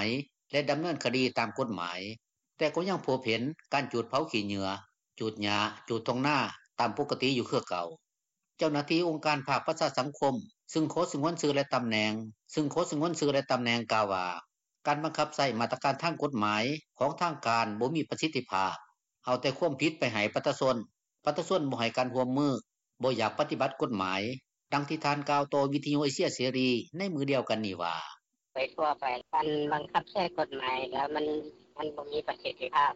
ແລະ ດຳເນີນຄະດີຕາມກົດໝາຍ. ແຕ່ກໍຍັງພົບເຫັນການຈູດເຜົາຂີ້ເຫຍື້ອ, ຈູດຫຍ້າ, ຈູດທົ່ງນາ ຕາມປົກກະຕິຢູ່ຄືເກົ່າ. ເຈົ້າໜ້າທີ່ອົງການພາກປະຊາສັງຄົມ ຊຶ່ງຂໍສະຫງວນຊື່ ແລະ ຕຳແໜ່ງ ຊຶ່ງຂໍສະຫງວນຊື່ ແລະ ຕຳແໜ່ງ ກ່າວວ່າ ການບັງຄັບໃຊ້ມາດຕະການທາງກົດໝາຍຂອງທາງການບໍ່ມີປະສິດທິພາບ, ເອົາແຕ່ຄວາມຜິດໄປໃຫ້ປະຊາຊົນ, ປະຊາຊົນບໍ່ໃຫ້ການຮ່ວມມື, ບໍ່ຢາກປະຕິບັດກົດໝາຍ. ດັ່ງທີ່ທ່ານກ່າວຕໍ່ວິທຍຸເອເຊຍເສລີໃນມື້ດຽວກັນນີ້ວ່າ: "ໄປທົ່ວໄປ ການບັງຄັບໃຊ້ກົດໝາຍລະມັນ ມັນບໍ່ມີປະສິດທິພາບ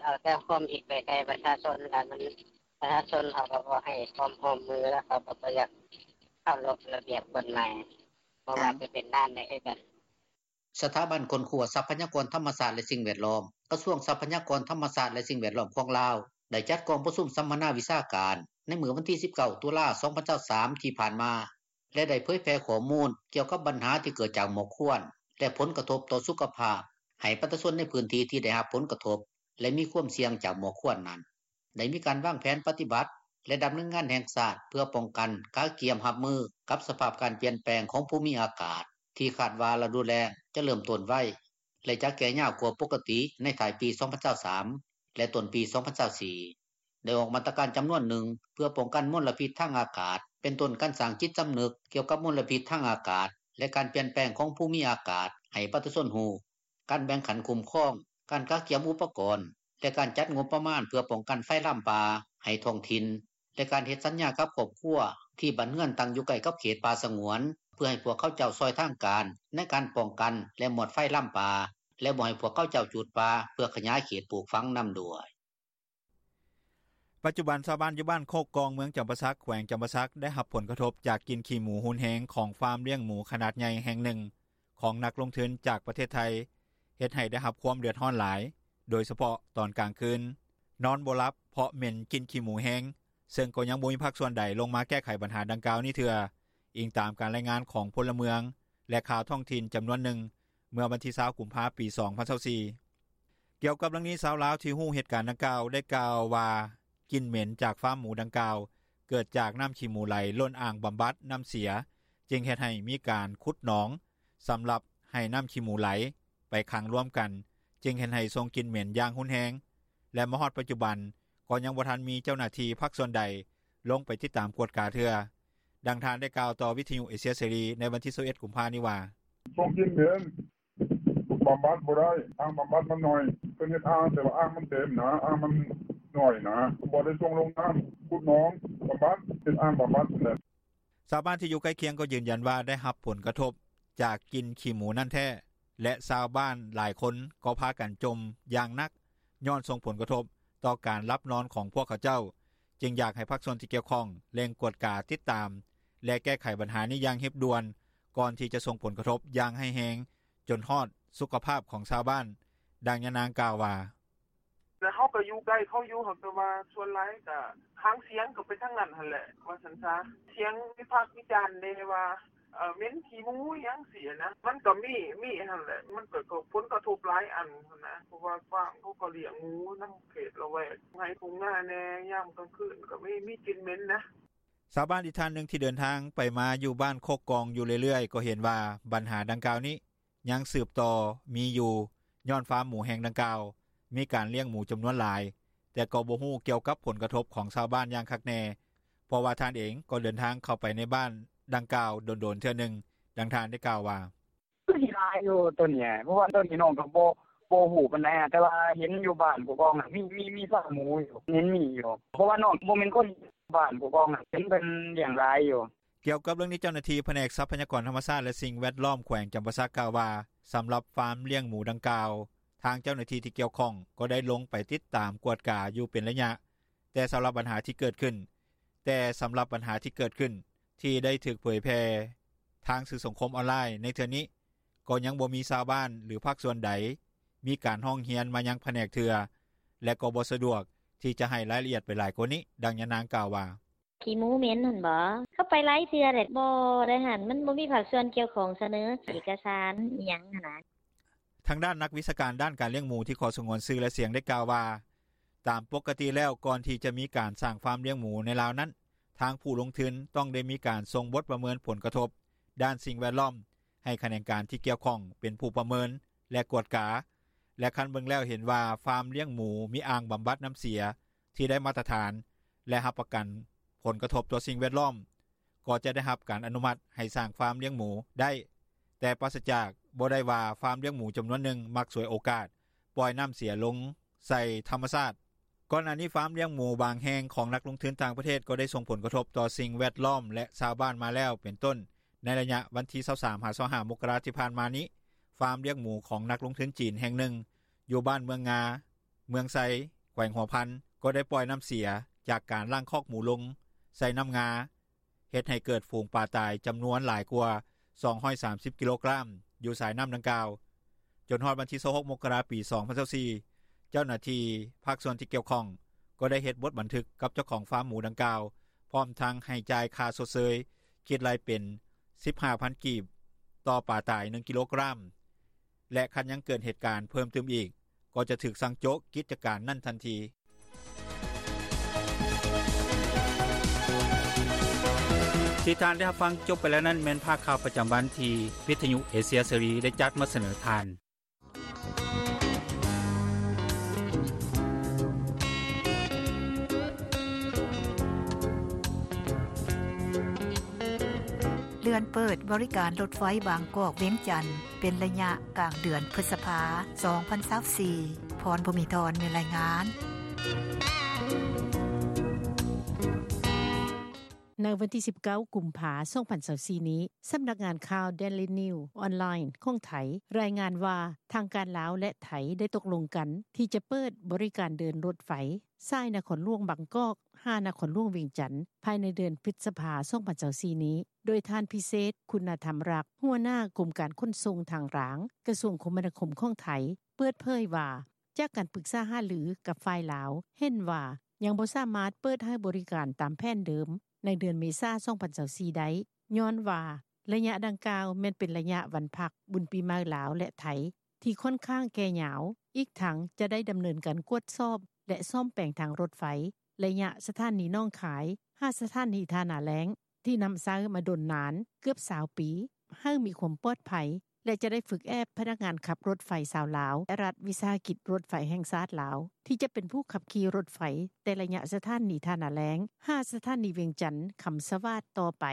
ເອົາແຕ່ຄວາມຜິດໄປໃສ່ປະຊາຊົນ ລະມັນ ປະຊາຊົນເຂົາກໍບໍ່ໃຫ້ຄວາມຮ່ວມມື ລະເຂົາກໍບໍ່ຢາກເຄົາລົບລະບຽບກົດໝາຍ ບໍ່ວ່າຈະເປັນດ້ານໃດຄືກັນ." ສະຖາບັນຄົ້ນຄວ້າຊັບພະຍາກອນທຳມະຊາດ ແລະ ສິ່ງແວດລ້ອມ ກະຊວງຊັບພະຍາກອນທຳມະຊາດ ແລະ ສິ່ງແວດລ້ອມຂອງລາວ ໄດ້ຈັດກອງປະຊຸມສຳມະນາວິຊາການ ໃນມື້ວັນທີ 19 ຕຸລາ 2023 ທີ່ຜ່ານມາ ແລະ ໄດ້ເຜີຍແຜ່ຂໍ້ມູນກ່ຽວກັບບັນຫາທີ່ເກີດຈາກໝອກຄວັນ ແລະ ຜົນກະທົບຕໍ່ສຸຂະພາບ ໃຫ້ປະຊາຊົນໃນພື້ນທີ່ທີ່ໄດ້ຮັບຜົນກະທົບ ແລະ ມີຄວາມສ່ຽງຈາກໝອກຄວັນນັ້ນ ໄດ້ມີການວາງແຜນປະຕິບັດ ແລະ ດຳເນີນງານແຫ່ງຊາດ ເພື່ອປ້ອງກັນ, ກະກຽມຮັບມືກັບສະພາບການປ່ຽນແປງຂອງພູມີອາກາດ ທີ່ຄາດວ່າລະດູແລ້ງຈະເລີ່ມຕົ້ນໄວ ແລະ ຈະແກ່ຍາວກວ່າປົກກະຕິໃນທ້າຍປີ 2023 ແລະ ຕົ້ນປີ 2024. ໄດ້ອອກມາດຕະການຈຳນວນໜຶ່ງ ເພື່ອປ້ອງກັນມົນລະພິດທາງອາກາດ ເປັນຕົ້ນການສ້າງຈິດສຳນຶກກ່ຽວກັບມົນລະພິດທາງອາກາດ ແລະ ການປ່ຽນແປງຂອງພູມີອາກາດ ໃຫ້ປະຊາຊົນຮູ້, ການແບ່ງຂັ້ນຄຸ້ມຄອງ, ການກະກຽມອຸປະກອນ ແລະ ການຈັດງົບປະມານເພື່ອປ້ອງກັນໄຟລາມປ່າໃຫ້ທ້ອງຖິ່ນ ແລະ ການເຮັດສັນຍາກັບຄອບຄົວທີ່ບ້ານເຮືອນຕັ້ງຢູ່ໃກ້ກັບເຂດປ່າສະຫງວນ ເພື່ອໃຫ້ພວກເຂົາເຈົ້າຊ່ອຍທາງການໃນການປ້ອງກັນ ແລະ ມອດໄຟລາມປ່າ ແລະ ບໍ່ໃຫ້ພວກເຂົາເຈົ້າຈູດປ່າເພື່ອຂະຫຍາຍເຂດປູກຝັງນຳດ້ວຍ. ປັດຈຸບັນຊາວບ້ານຢູ່ບ້ານໂຄກກອງ ເມືອງຈຳປາສັກ ແຂວງຈຳປາສັກ ໄດ້ຮັບຜົນກະທົບຈາກກິ່ນຂີ້ໝູຮຸນແຮງຂອງຟາມລ້ຽງໝູຂະໜາດໃຫຍ່ແຫ່ງໜຶ່ງຂອງນັກລົງທຶນຈາກປະເທດໄທ ເຮັດໃຫ້ໄດ້ຮັບຄວາມເດືອດຮ້ອນຫຼາຍ ໂດຍສະເພາະຕອນກາງຄືນ ນອນບໍ່ຫຼັບເພາະເໝັນກິ່ນຂີ້ໝູແຮງ ເຊິ່ງກໍຍັງບໍ່ມີພາກສ່ວນໃດລົງມາແກ້ໄຂບັນຫາດັ່ງກ່າວນີ້ເທື່ອ, ອີງຕາມການລາຍງານຂອງພົນລະເມືອງ ແລະ ຂ່າວທ້ອງຖິ່ນຈຳນວນໜຶ່ງ ເມື່ອວັນທີ 20 ກຸມພາ ປີ 2024. ກ່ຽວກັບເລື່ອງນີ້ ຊາວລາວທີ່ຮູ້ເຫດການດັ່ງກ່າວໄດ້ກ່າວວ່າ ກິ່ນເໝັນຈາກຟາມໝູດັ່ງກ່າວ ເກີດຈາກນ້ຳຂີ້ໝູໄຫຼລົ້ນອ່າງບຳບັດນ້ຳເສຍ ຈຶ່ງເຮັດໃຫ້ມີການຂຸດໜອງສຳລັບໃຫ້ນ້ຳຂີ້ໝູໄຫຼໄປຂັງລວມກັນ ຈຶ່ງເຮັດໃຫ້ສົ່ງກິ່ນເໝັນຢ່າງຮຸນແຮງ ແລະ ມາຮອດປັດຈຸບັນກໍຍັງບໍ່ທັນມີເຈົ້າໜ້າທີ່ພາກສ່ວນໃດລົງໄປຕິດຕາມກວດກາເທື່ອ. ດັ່ງທ່ານໄດ້ກ່າວຕໍ່ວິທຍຸເອເຊຍເສລີໃນວັນທີ 21 ກຸມພານີ້ວ່າ: "ສົ່ງກິ່ນເໝັນ ບຳບັດບໍ່ໄດ້ ອ່າງບຳບັດມັນໜ້ອຍ ເພິ່ນເຮັດອ່າງ ແຕ່ວ່າອ່າງມັນເຕັມນະ ອ່າງມັນໜ້ອຍນະ ບໍ່ໄດ້ສົ່ງລົງນ້ຳ ຂຸດໜອງບຳບັດ ເຮັດອ່າງບຳບັດຫັ້ນແຫຼະ." ຊາວບ້ານທີ່ຢູ່ໃກ້ຄຽງກໍຢືນຢັນວ່າ ໄດ້ຮັບຜົນກະທົບຈາກກິ່ນຂີ້ໝູນັ້ນແທ້ ແລະ ຊາວບ້ານຫຼາຍຄົນກໍພາກັນຈົ່ມຢ່າງໜັກ ຍ້ອນສົ່ງຜົນກະທົບ ຕໍ່ການຫຼັບນອນຂອງພວກເຂົາເຈົ້າ ຈຶ່ງຢາກໃຫ້ພາກສ່ວນທີ່ກ່ຽວຂ້ອງ ເລັ່ງກວດກາຕິດຕາມ ແລະແກ້ໄຂບັນຫານີ້ຢ່າງຮີບດ່ວນ ກ່ອນທີ່ຈະສົ່ງຜົນກະທົບຢ່າງຮ້າຍແຮງ ຈົນຮອດສຸຂະພາບຂອງຊາວບ້ານ. ດັ່ງຍານາງກ່າວວ່າ: “ແລ້ວເຮົາກໍຢູ່ໃກ້ເຂົາຢູ່ ຫາກແຕ່ວ່າສ່ວນຫຼາຍກໍຫາງສຽງກໍໄປທາງນັ້ນຫັ້ນແຫຼະ ວ່າຊັ້ນສາ ສຽງວິພາກວິຈານແດ່ວ່າເໝັນຂີ້ໝູຫຍັງຊີ້ຫັ້ນນ່າ ມັນກໍມີມີຫັ້ນແຫຼະ ມັນກໍຜົນກະທົບຫຼາຍອັນຫັ້ນນ່າ ເພາະວ່າຟາມເຂົາກໍລ້ຽງໝູນຳເຂດລະແວກ ທົ່ງໄຮ່ທົ່ງນາແດ່ ຍາມກາງຄືນກໍມີກິ່ນເໝັນນ່າ.” ຊາວບ້ານອີກທ່ານໜຶ່ງ ທີ່ເດີນທາງໄປມາຢູ່ບ້ານໂຄກກອງຢູ່ເລື້ອຍໆ ກໍເຫັນວ່າບັນຫາດັ່ງກ່າວນີ້ ຍັງສືບຕໍ່ມີຢູ່ ຍ້ອນຟາມໝູແຫ່ງດັ່ງກ່າວ ມີການລ້ຽງໝູຈຳນວນຫຼາຍ ແຕ່ກໍບໍ່ຮູ້ກ່ຽວກັບຜົນກະທົບຂອງຊາວບ້ານຢ່າງຄັກແນ່ ເພາະວ່າທ່ານເອງກໍເດີນທາງເຂົ້າໄປໃນບ້ານດັ່ງກ່າວດົນໆເທື່ອໜຶ່ງ. ດັ່ງທ່ານກ່າວວ່າ: “ມັນກໍຫຼາຍຢູ່ໂຕນີ້ ເພາະວ່າໂຕນີ້ນ້ອງກໍບໍ່ຮູ້ປານໃດ ແຕ່ວ່າເຫັນຢູ່ບ້ານໂຄກກອງຫັ້ນ ມີຟາມໝູຢູ່ ເຫັນມີຢູ່ ເພາະວ່ານ້ອງບໍ່ແມ່ນຄົນບ້ານໂຄກກອງຫັ້ນ ເຫັນເພິ່ນລ້ຽງຫຼາຍຢູ່.” ກ່ຽວກັບເລື່ອງນີ້ ເຈົ້າໜ້າທີ່ພະແນກຊັບພະຍາກອນທຳມະຊາດ ແລະສິ່ງແວດລ້ອມ ແຂວງຈຳປາສັກ ກ່າວວ່າ ສຳລັບຟາມລ້ຽງໝູດັ່ງກ່າວ ທາງເຈົ້າໜ້າທີ່ທີ່ກ່ຽວຂ້ອງ ກໍໄດ້ລົງໄປຕິດຕາມກວດກາຢູ່ເປັນໄລຍະ ແຕ່ສຳລັບບັນຫາທີ່ເກີດຂຶ້ນ ແຕ່ສຳລັບບັນຫາທີ່ເກີດຂຶ້ນ ທີ່ໄດ້ຖືກເຜີຍແຜ່ທາງສື່ສັງຄົມອອນລາຍ ໃນເທື່ອນີ້ ກໍຍັງບໍ່ມີຊາວບ້ານ ຫຼືພາກສ່ວນໃດ ມີການຮ້ອງຮຽນມາຍັງພະແນກເທື່ອ ແລະກໍບໍ່ສະດວກທີ່ຈະໃຫ້ລາຍລະອຽດໄປຫຼາຍກວ່ານີ້. ດັ່ງຍານາງກ່າວວ່າ: “ຂີ້ໝູເໝັນຫັ້ນບໍ ເຂົາໄປຫຼາຍເທື່ອແລ້ວ ບໍ່ໄດ້ຫັ້ນ ມັນບໍ່ມີພາກສ່ວນກ່ຽວຂ້ອງສະເໜີເອກກະສານອີ່ຫຍັງຫັ້ນນ່າ.” ທາງດ້ານນັກວິຊາການດ້ານການລ້ຽງໝູ ທີ່ຂໍສະຫງວນຊື່ ແລະສຽງ ໄດ້ກ່າວວ່າ ຕາມປົກກະຕິແລ້ວ ກ່ອນທີ່ຈະມີການສ້າງຟາມລ້ຽງໝູໃນລາວນັ້ນ ທາງຜູ້ລົງທຶນຕ້ອງໄດ້ມີການສົ່ງບົດປະເມີນຜົນກະທົບດ້ານສິ່ງແວດລ້ອມ ໃຫ້ຂະແໜງການທີ່ກ່ຽວຂ້ອງເປັນຜູ້ປະເມີນ ແລະກວດກາ ແລະຄັນເບິ່ງແລ້ວເຫັນວ່າ ຟາມລ້ຽງໝູມີອ່າງບຳບັດນໍ້າເສຍ ທີ່ໄດ້ມາດຕະຖານ ແລະຮັບປະກັນຜົນກະທົບຕໍ່ສິ່ງແວດລ້ອມ ກໍຈະໄດ້ຮັບການອະນຸມັດໃຫ້ສ້າງຟາມລ້ຽງໝູໄດ້ ແຕ່ປາສະຈາກ ບໍ່ໄດ້ວ່າ ຟາມລ້ຽງໝູຈຳນວນໜຶ່ງ ມັກສວຍໂອກາດປ່ອຍນໍ້າເສຍລົງໃສ່ທຳມະຊາດ. ກ່ອນໜ້ານີ້ ຟາມລ້ຽງໝູບາງແຫ່ງ ຂອງນັກລົງທຶນຕ່າງປະເທດ ກໍໄດ້ສົ່ງຜົນກະທົບຕໍ່ສິ່ງແວດລ້ອມ ແລະຊາວບ້ານມາແລ້ວ ເປັນຕົ້ນໃນໄລຍະວັນທີ ຊາວສາມ ຫາ ຊາວຫ້າ ມົກກະລາ ທີ່ຜ່ານມານີ້ ຟາມລ້ຽງໝູຂອງນັກລົງທຶນຈີນແຫ່ງໜຶ່ງ ຢູ່ບ້ານເມືອງງາ ເມືອງໄຊ ແຂວງຫົວພັນ ກໍໄດ້ປ່ອຍນໍ້າເສຍ ຈາກການລ້າງຄອກໝູລົງໃສ່ນໍ້າງາ ເຮັດໃຫ້ເກີດຝູງປາຕາຍຈຳນວນຫຼາຍກວ່າ ສອງຮ້ອຍສາມສິບ ກິໂລກຣາມ ຢູ່ສາຍນໍ້າດັ່ງກ່າວ. ຈົນຮອດວັນທີ ຊາວຫົກ ມົກກະລາ ປີ ສອງພັນຊາວສີ່ ເຈົ້າໜ້າທີ່ພາກສ່ວນທີ່ກ່ຽວຂ້ອງ ກໍໄດ້ເຮັດບົດບັນທຶກກັບເຈົ້າຂອງຟາມໝູດັ່ງກ່າວ ພ້ອມທັງໃຫ້ຈ່າຍຄ່າຊົດເຊີຍ ຄິດໄລ່ເປັນ ສິບຫ້າພັນກີບ ຕໍ່ປາຕາຍ ໜຶ່ງ ກິໂລກຣາມ ແລະຄັນຍັງເກີດເຫດການເພີ່ມຕື່ມອີກ ກໍຈະຖືກສັ່ງໂຈະກິດຈະການນັ້ນທັນທີ. ທີ່ທ່ານໄດ້ຮັບຟັງຈົບໄປແລ້ວນັ້ນ ແມ່ນພາກຂ່າວປະຈຳວັນ ທີ່ວິທຍຸເອເຊຍເສລີ ໄດ້ຈັດມາສະເໜີທ່ານ. ເລື່ອນເປີດບໍລິການລົດໄຟບາງກອກ-ວຽງຈັນ ເປັນໄລຍະກາງເດືອນພຶດສະພາ ສອງພັນຊາວສີ່. ພອນ ພູມີທອນ ມີລາຍງານ. ໃນວັນທີ ສິບເກົ້າ ກຸມພາ ສອງພັນຊາວສີ່ ນີ້, ສຳນັກງານຂ່າວ Daily News Online ຂອງໄທ ລາຍງານວ່າ ທາງການລາວ ແລະ ໄທ ໄດ້ຕົກລົງກັນ ທີ່ຈະເປີດບໍລິການເດີນລົດໄຟ ສາຍນະຄອນຫຼວງບາງກອກ ຫານະຄອນຫຼວງວຽງຈັນ ພາຍໃນເດືອນພຶດສະພາ ສອງພັນຊາວສີ່ ນີ້, ໂດຍທ່ານ ພິເສດ ຄຸນນະທຳລັກ ຫົວໜ້າກົມການຂົນສົ່ງທາງລາງ ກະຊວງຄົມມະນາຄົມຂອງໄທ ເປີດເຜີຍວ່າ ຈາກການປຶກສາຫາລືກັບຝ່າຍລາວ ເຫັນວ່າຍັງບໍ່ສາມາດເປີດໃຫ້ບໍລິການຕາມແຜນເດີມ ໃນເດືອນເມສາ ສອງພັນຊາວສີ່ ໄດ້ ຍ້ອນວ່າ ໄລຍະດັ່ງກ່າວ ແມ່ນເປັນໄລຍະວັນພັກ ບຸນປີໃໝ່ລາວ ແລະ ໄທ ທີ່ຂ້ອນຂ້າງແກ່ຍາວ, ອີກທັງຈະໄດ້ດຳເນີນການກວດສອບ ແລະ ສ້ອມແປງທາງລົດໄຟ ໄລຍະສະຖານີໜອງຄາຍ ຫາສະຖານີທ່ານາແລ້ງ ທີ່ນຳໃຊ້ມາດົນນານເກືອບ ຊາວ ປີ ໃຫ້ມີຄວາມປອດໄພ ແລະ ຈະໄດ້ຝຶກແອບພະນັກງານຂັບລົດໄຟຊາວລາວ ແລະ ລັດວິສາຫະກິດລົດໄຟແຫ່ງຊາດລາວ ທີ່ຈະເປັນຜູ້ຂັບຂີ່ລົດໄຟ ແຕ່ໄລຍະສະຖານີທ່ານາແລ້ງ ຫາສະຖານີວຽງຈັນຄຳສະຫວາດຕໍ່ໄປ,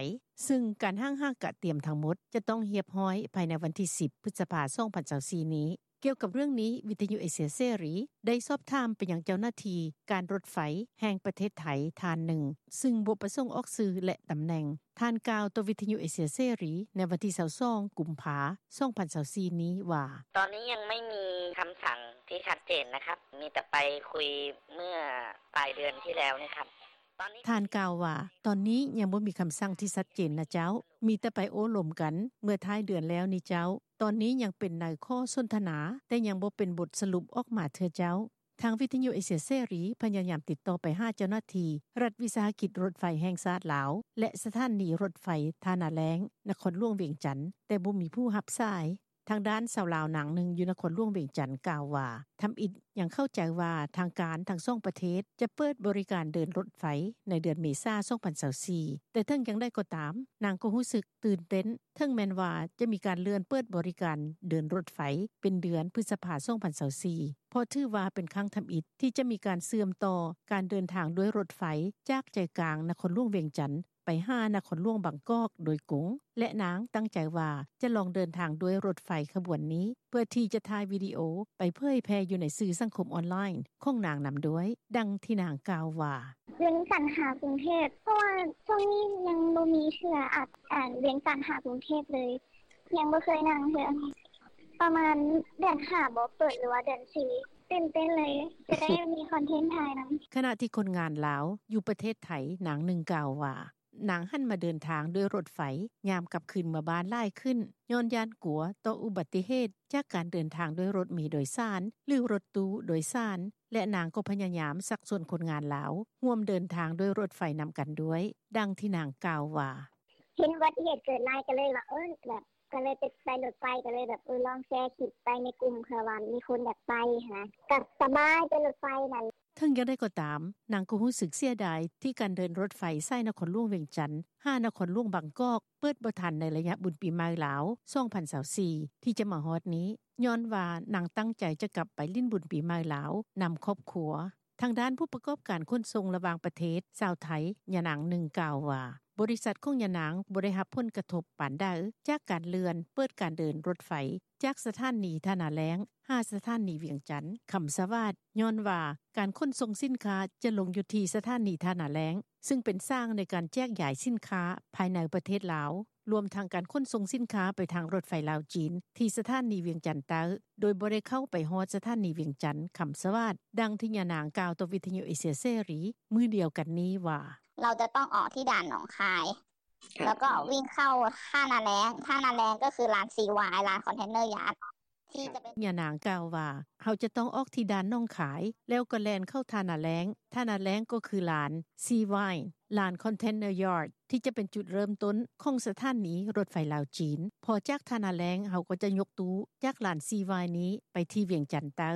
ຊຶ່ງການຮ່າງຫາກະຕຽມທັງໝົດ ຈະຕ້ອງຮຽບຮ້ອຍພາຍໃນວັນທີ ສິບ ພຶດສະພາ ສອງພັນຊາວສີ່ ນີ້. ກ່ຽວກັບເລື່ອງນີ້ ວິທຍຸເອເຊຍເສລີ ໄດ້ສອບຖາມໄປຍັງເຈົ້າໜ້າທີ່ ການລົດໄຟແຫ່ງປະເທດໄທ ທ່ານໜຶ່ງ ຊຶ່ງບໍ່ປະສົງອອກຊື່ ແລະ ຕຳແໜ່ງ. ທ່ານກ່າວຕໍ່ວິທຍຸເອເຊຍເສລີ ໃນວັນທີ ຊາວສອງ ກຸມພາ ສອງພັນຊາວສີ່ ນີ້ວ່າ: "ຕອນນີ້ຍັງໄມ່ມີຄຳສັ່ງທີ່ຊັດເຈນນະຄັບ ມີແຕ່ໄປຄຸຍເມື່ອປາຍເດືອນທີ່ແລ້ວນີ້ຄັບ." ທ່ານກ່າວວ່າ: "ຕອນນີ້ຍັງບໍ່ມີຄຳສັ່ງທີ່ຊັດເຈນນະເຈົ້າ ມີແຕ່ໄປໂອ້ລົມກັນເມື່ອທ້າຍເດືອນແລ້ວນີ້ເຈົ້າ. ຕອນນີ້ຍັງເປັນໃນຂໍ້ສົນທະນາ ແຕ່ຍັງບໍ່ເປັນບົດສະຫຼຸບອອກມາເທື່ອເຈົ້າ." ທາງວິທຍຸເອເຊຍເສລີ ພະຍາຍາມຕິດຕໍ່ໄປຫາເຈົ້າໜ້າທີ່ ລັດວິສາຫະກິດລົດໄຟແຫ່ງຊາດລາວ ແລະ ສະຖານີລົດໄຟທ່ານາແລ້ງ ນະຄອນຫຼວງວຽງຈັນ ແຕ່ບໍ່ມີຜູ້ຮັບສາຍ. ທາງດ້ານຊາວລາວນາງໜຶ່ງ ຢູ່ນະຄອນຫຼວງວຽງຈັນ ກ່າວວ່າ ທຳອິດຍັງເຂົ້າໃຈວ່າ ທາງການທັງສອງປະເທດ ຈະເປີດບໍລິການເດີນລົດໄຟ ໃນເດືອນເມສາ ສອງພັນຊາວສີ່ ແຕ່ເຖິງຢ່າງໃດກໍຕາມ ນາງກໍຮູ້ສຶກຕື່ນເຕັ້ນ ເຖິງແມ່ນວ່າຈະມີການເລື່ອນເປີດບໍລິການເດີນລົດໄຟ ເປັນເດືອນພຶດສະພາ ສອງພັນຊາວສີ່ ເພາະຖືວ່າເປັນຄັ້ງທຳອິດ ທີ່ຈະມີການເຊື່ອມຕໍ່ການເດີນທາງດ້ວຍລົດໄຟ ຈາກໃຈກາງນະຄອນຫຼວງວຽງຈັນ ໄປຫານະຄອນຫຼວງບາງກອກໂດຍກົງ ແລະ ນາງຕັ້ງໃຈວ່າ ຈະລອງເດີນທາງດ້ວຍລົດໄຟຂະບວນນີ້ ເພື່ອທີ່ຈະຖ່າຍວິດີໂອ ໄປເຜີຍແຜ່ຢູ່ໃນສື່ສັງຄົມອອນລາຍນ໌ຂອງນາງນຳດ້ວຍ. ດັ່ງທີ່ນາງກ່າວວ່າ: "ວຽງຈັນຫາກຸງເທບ ເພາະວ່າຊ່ວງນີ້ຍັງບໍ່ມີເທື່ອ ອາດ ອາ ວຽງຈັນຫາກຸງເທບເລີຍ ຍັງບໍ່ເຄີຍນັ່ງເທື່ອ ປະມານເດືອນຫ້າບໍ ເປີດ ຫຼືວ່າເດືອນສີ່ ຕື່ນເຕັ້ນເລີຍ ຈະໄດ້ມີຄອນເທັນຖ່າຍນຳ." ຂະນະທີ່ຄົນງານລາວຢູ່ປະເທດໄທ ນາງໜຶ່ງກ່າວວ່າ ນາງຫັນມາເດີນທາງດ້ວຍລົດໄຟ ຍາມກັບຄືນເມືອບ້ານຫຼາຍຂຶ້ນ ຍ້ອນຢ້ານກົວຕໍ່ອຸບັດຕິເຫດ ຈາກການເດີນທາງດ້ວຍລົດເມໂດຍສານ ຫຼື ລົດຕູ້ໂດຍສານ ແລະ ນາງກໍພະຍາຍາມຊັກຊວນຄົນງານລາວ ຮ່ວມເດີນທາງດ້ວຍລົດໄຟນຳກັນດ້ວຍ. ດັ່ງທີ່ນາງກ່າວວ່າ: "ເຫັນອຸບັດຕິເຫດເກີດຫຼາຍ ກໍເລີຍວ່າ ເອີ ແບບ ກໍເລີຍໄປລົດໄຟ ກໍເລີຍແບບ ເອີ ລອງແຊຄລິບໄປໃນກຸ່ມ ເພື່ອວ່າມີຄົນຢາກໄປຫັ້ນນະ ກໍສະບາຍໄປລົດໄຟນັ້ນ." ເຖິງຢ່າງໃດກໍຕາມ ນາງກໍຮູ້ສຶກເສຍດາຍ ທີ່ການເດີນລົດໄຟສາຍນະຄອນຫຼວງວຽງຈັນ ຫານະຄອນຫຼວງບາງກອກ ເປີດບໍ່ທັນໃນໄລຍະບຸນປີໃໝ່ລາວ ສອງພັນຊາວສີ່ ທີ່ຈະມາຮອດນີ້ ຍ້ອນວ່ານາງຕັ້ງໃຈຈະກັບໄປຫຼິ້ນບຸນປີໃໝ່ລາວນຳຄອບຄົວ. ທາງດ້ານຜູ້ປະກອບການຂົນສົ່ງລະຫວ່າງປະເທດ ຊາວໄທ ຍານາງໜຶ່ງກ່າວວ່າ ບໍລິສັດຂອງຍານາງບໍ່ໄດ້ຮັບຜົນກະທົບປານໃດ ຈາກການເລື່ອນເປີດການເດີນລົດໄຟ ຈາກສະຖານີທ່ານາແລ້ງ ຫາສະຖານີວຽງຈັນ ຄຳສະຫວາດ ຍ້ອນວ່າການຂົນສົ່ງສິນຄ້າຈະລົງຢູ່ທີ່ສະຖານີທ່ານາແລ້ງ ຊຶ່ງເປັນສາງໃນການແຈກຢາຍສິນຄ້າພາຍໃນປະເທດລາວ ລວມທັງການຂົນສົ່ງສິນຄ້າໄປທາງລົດໄຟລາວ-ຈີນ ທີ່ສະຖານີວຽງຈັນໃຕ້ ໂດຍບໍ່ໄດ້ເຂົ້າໄປຮອດສະຖານີວຽງຈັນ ຄຳສະຫວາດ. ດັ່ງທີ່ຍານາງກ່າວຕໍ່ວິທຍຸເອເຊຍເສລີມື້ດຽວກັນນີ້ວ່າ: "เราจะต้องออกที่ด่านหนองคาย แล้วก็วิ่งเข้าท่านาแล้ง ท่านาแล้งก็คือลานซีวาย ลานคอนเทนเนอร์ยาร์ด ที่จะเป็น" ຍານາງກ່າວວ່າ: "ເຮົາຈະຕ້ອງອອກທີ່ດ່ານໜອງຄາຍ ແລ້ວກໍແລ່ນເຂົ້າທ່ານາແລ້ງ ທ່ານາແລ້ງກໍຄືລານ Sea Vine ລານ Container Yard ທີ່ຈະເປັນຈຸດເລີ່ມຕົ້ນຂອງສະຖານີລົດໄຟລາວ-ຈີນ ພໍຈາກທ່ານາແລ້ງ ເຮົາກໍຈະຍົກຕູ້ຈາກລານ Sea Vine ນີ້ໄປທີ່ວຽງຈັນໃຕ້."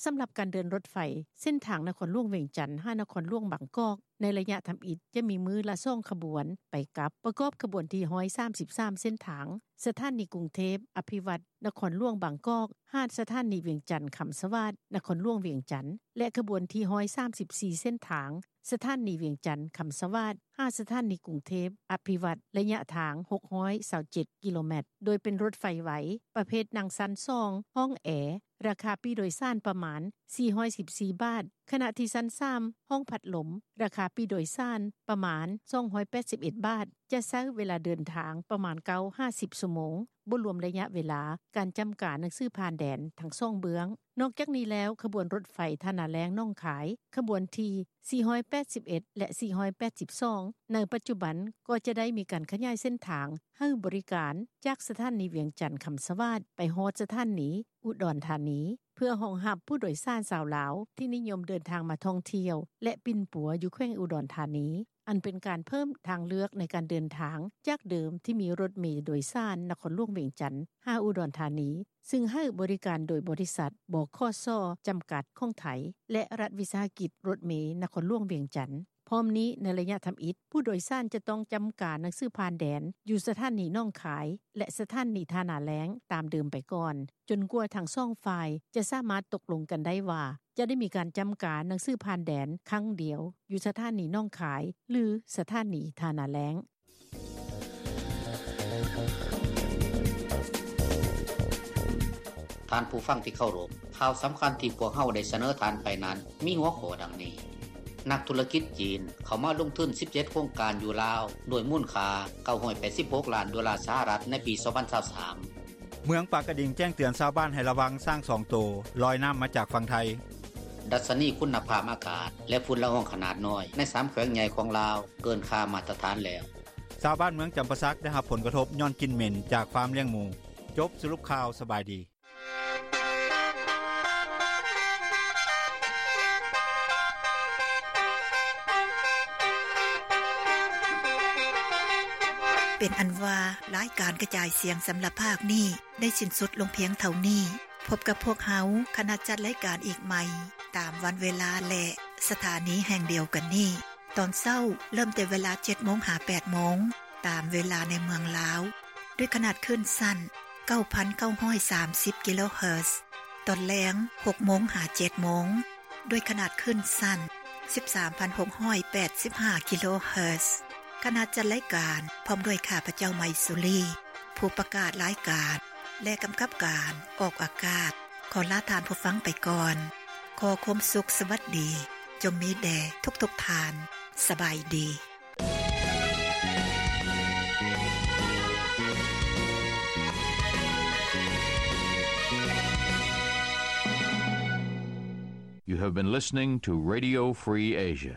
ສຳລັບການເດີນລົດໄຟ ເສັ້ນທາງນະຄອນຫຼວງວຽງຈັນ ຫານະຄອນຫຼວງບາງກອກ ໃນໄລຍະທຳອິດ ຈະມີມື້ລະສອງຂະບວນໄປກັບ ປະກອບຂະບວນທີຮ້ອຍສາມສິບສາມເສັ້ນທາງ ສະຖານີກຸງເທບ ອະພິວັດ ນະຄອນຫຼວງບາງກອກ ຫາສະຖານີວຽງຈັນ ຄຳສະຫວາດ ນະຄອນຫຼວງວຽງຈັນ ແລະ ຂະບວນທີຮ້ອຍສາມສິບສີ່ເສັ້ນທາງ ສະຖານີວຽງຈັນ ຄຳສະຫວາດ ຫາສະຖານີກຸງເທບ ອະພິວັດ ໄລຍະທາງຫົກຮ້ອຍຊາວເຈັດກິໂລແມັດ ໂດຍເປັນລົດໄຟໄວ ປະເພດນັ່ງຊັ້ນສອງ ຫ້ອງແອ ລາຄາປີ້ໂດຍສານປະມານສີ່ຮ້ອຍສິບສີ່ບາດ, ຂະນະທີ່ຊັ້ນສາມ ຫ້ອງພັດລົມ ລາຄາປີ້ໂດຍສານປະມານສອງຮ້ອຍແປດສິບເອັດບາດ, ຈະໃຊ້ເວລາເດີນທາງປະມານເກົ້າຫາສິບຊົ່ວໂມງ, ບໍ່ລວມໄລຍະເວລາການຈຳກາໜັງສືຜ່ານແດນທັງສອງເບື້ອງ. ນອກຈາກນີ້ແລ້ວ, ຂະບວນລົດໄຟທ່ານາແລ້ງ ໜອງຄາຍ ຂະບວນທີສີ່ຮ້ອຍແປດສິບເອັດ ແລະ ສີ່ຮ້ອຍແປດສິບສອງ ໃນປັດຈຸບັນກໍຈະໄດ້ມີການຂະຫຍາຍເສັ້ນທາງໃຫ້ບໍລິການ ຈາກສະຖານີວຽງຈັນຄຳສະຫວາດ ໄປຮອດສະຖານີອຸດອນທານີ ເພື່ອຮອງຮັບຜູ້ໂດຍສານຊາວລາວທີ່ນິຍົມເດີນທາງມາທ່ອງທ່ຽວ ແລະ ປິ່ນປົວຢູ່ແຂວງອຸດອນທານີ, ອັນເປັນການເພີ່ມທາງເລືອກໃນການເດີນທາງຈາກເດີມທີ່ມີລົດເມໂດຍສານນະຄອນຫຼວງວຽງຈັນຫາອຸດອນທານີ, ຊຶ່ງໃຫ້ບໍລິການໂດຍບໍລິສັດ ບຂສ ຈຳກັດຂອງໄທ ແລະ ລັດວິສາຫະກິດລົດເມນະຄອນຫຼວງວຽງຈັນ. ພ້ອມນີ້, ໃນໄລຍະທຳອິດ, ຜູ້ໂດຍສານຈະຕ້ອງຈຳກາໜັງສືຜ່ານແດນຢູ່ສະຖານີໜອງຄາຍ ແລະ ສະຖານີທ່ານາແລ້ງຕາມເດີມໄປກ່ອນ, ຈົນກວ່າທັງສອງຝ່າຍຈະສາມາດຕົກລົງກັນໄດ້ວ່າ ຈະໄດ້ມີການຈຳກາໜັງສືຜ່ານແດນຄັ້ງດຽວຢູ່ສະຖານີໜອງຄາຍ ຫຼື ສະຖານີທ່ານາແລ້ງ. ທ່ານຜູ້ຟັງທີ່ເຄົາລົບ, ຂ່າວສຳຄັນທີ່ພວກເຮົາໄດ້ສະເໜີທ່ານໄປນັ້ນ ມີຫົວຂໍ້ດັ່ງນີ້: ນັກທຸລະກິດຈີນເຂົ້າມາລົງທຶນສິບເຈັດໂຄງການຢູ່ລາວ ດ້ວຍມູນຄ່າເກົ້າຮ້ອຍແປດສິບຫົກລ້ານໂດລາສະຫະລັດໃນປີສອງພັນຊາວສາມ. ເມືອງປາກກະດິງແຈ້ງເຕືອນຊາວບ້ານໃຫ້ລະວັງຊ້າງສອງໂຕລອຍນ້ຳມາຈາກຝັ່ງໄທ. ດັດຊະນີຄຸນນະພາບອາກາດ ແລະຝຸ່ນລະອອງຂະໜາດນ້ອຍໃນສາມແຂວງໃຫຍ່ຂອງລາວເກີນຄ່າມາດຕະຖານແລ້ວ. ຊາວບ້ານເມືອງຈຳປາສັກໄດ້ຮັບຜົນກະທົບຍ້ອນກິ່ນເໝັນຈາກຟາມລ້ຽງໝູ. ຈົບສະຫຼຸບຂ່າວ, ສະບາຍດີ. ເປັນອັນວ່າ ລາຍການກະຈາຍສຽງສຳລັບພາກນີ້ ໄດ້ສິ້ນສຸດລົງພຽງເທົ່ານີ້. ພົບກັບພວກເຮົາ ຄະນະຈັດລາຍການອີກໃໝ່ ຕາມວັນເວລາ ແລະ ສະຖານີແຫ່ງດຽວກັນນີ້. ຕອນເຊົ້າເລີ່ມແຕ່ເວລາເຈັດໂມງຫາແປດໂມງ ຕາມເວລາໃນເມືອງລາວ ດ້ວຍຂະໜາດຄື້ນສັ້ນເກົ້າພັນເກົ້າຮ້ອຍສາມສິບກິໂລເຮີດ. ຕອນແລງຫົກໂມງຫາເຈັດໂມງ ດ້ວຍຂະໜາດຄື້ນສັ້ນສິບສາມພັນຫົກຮ້ອຍແປດສິບຫ້າກິໂລເຮີດ. ຄະນະຈັດລາຍການພ້ອມດ້ວຍຂ້າພະເຈົ້າ ໄມສຸລີ ຜູ້ປະກາດລາຍການ ແລະ ກຳກັບການອອກອາກາດ ຂໍລາທ່ານຜູ້ຟັງໄປກ່ອນ. ຂໍຄວາມສຸກສະຫວັດດີຈົ່ງມີແດ່ທຸກໆທ່ານ. ສະບາຍດີ. You have been listening to Radio Free Asia.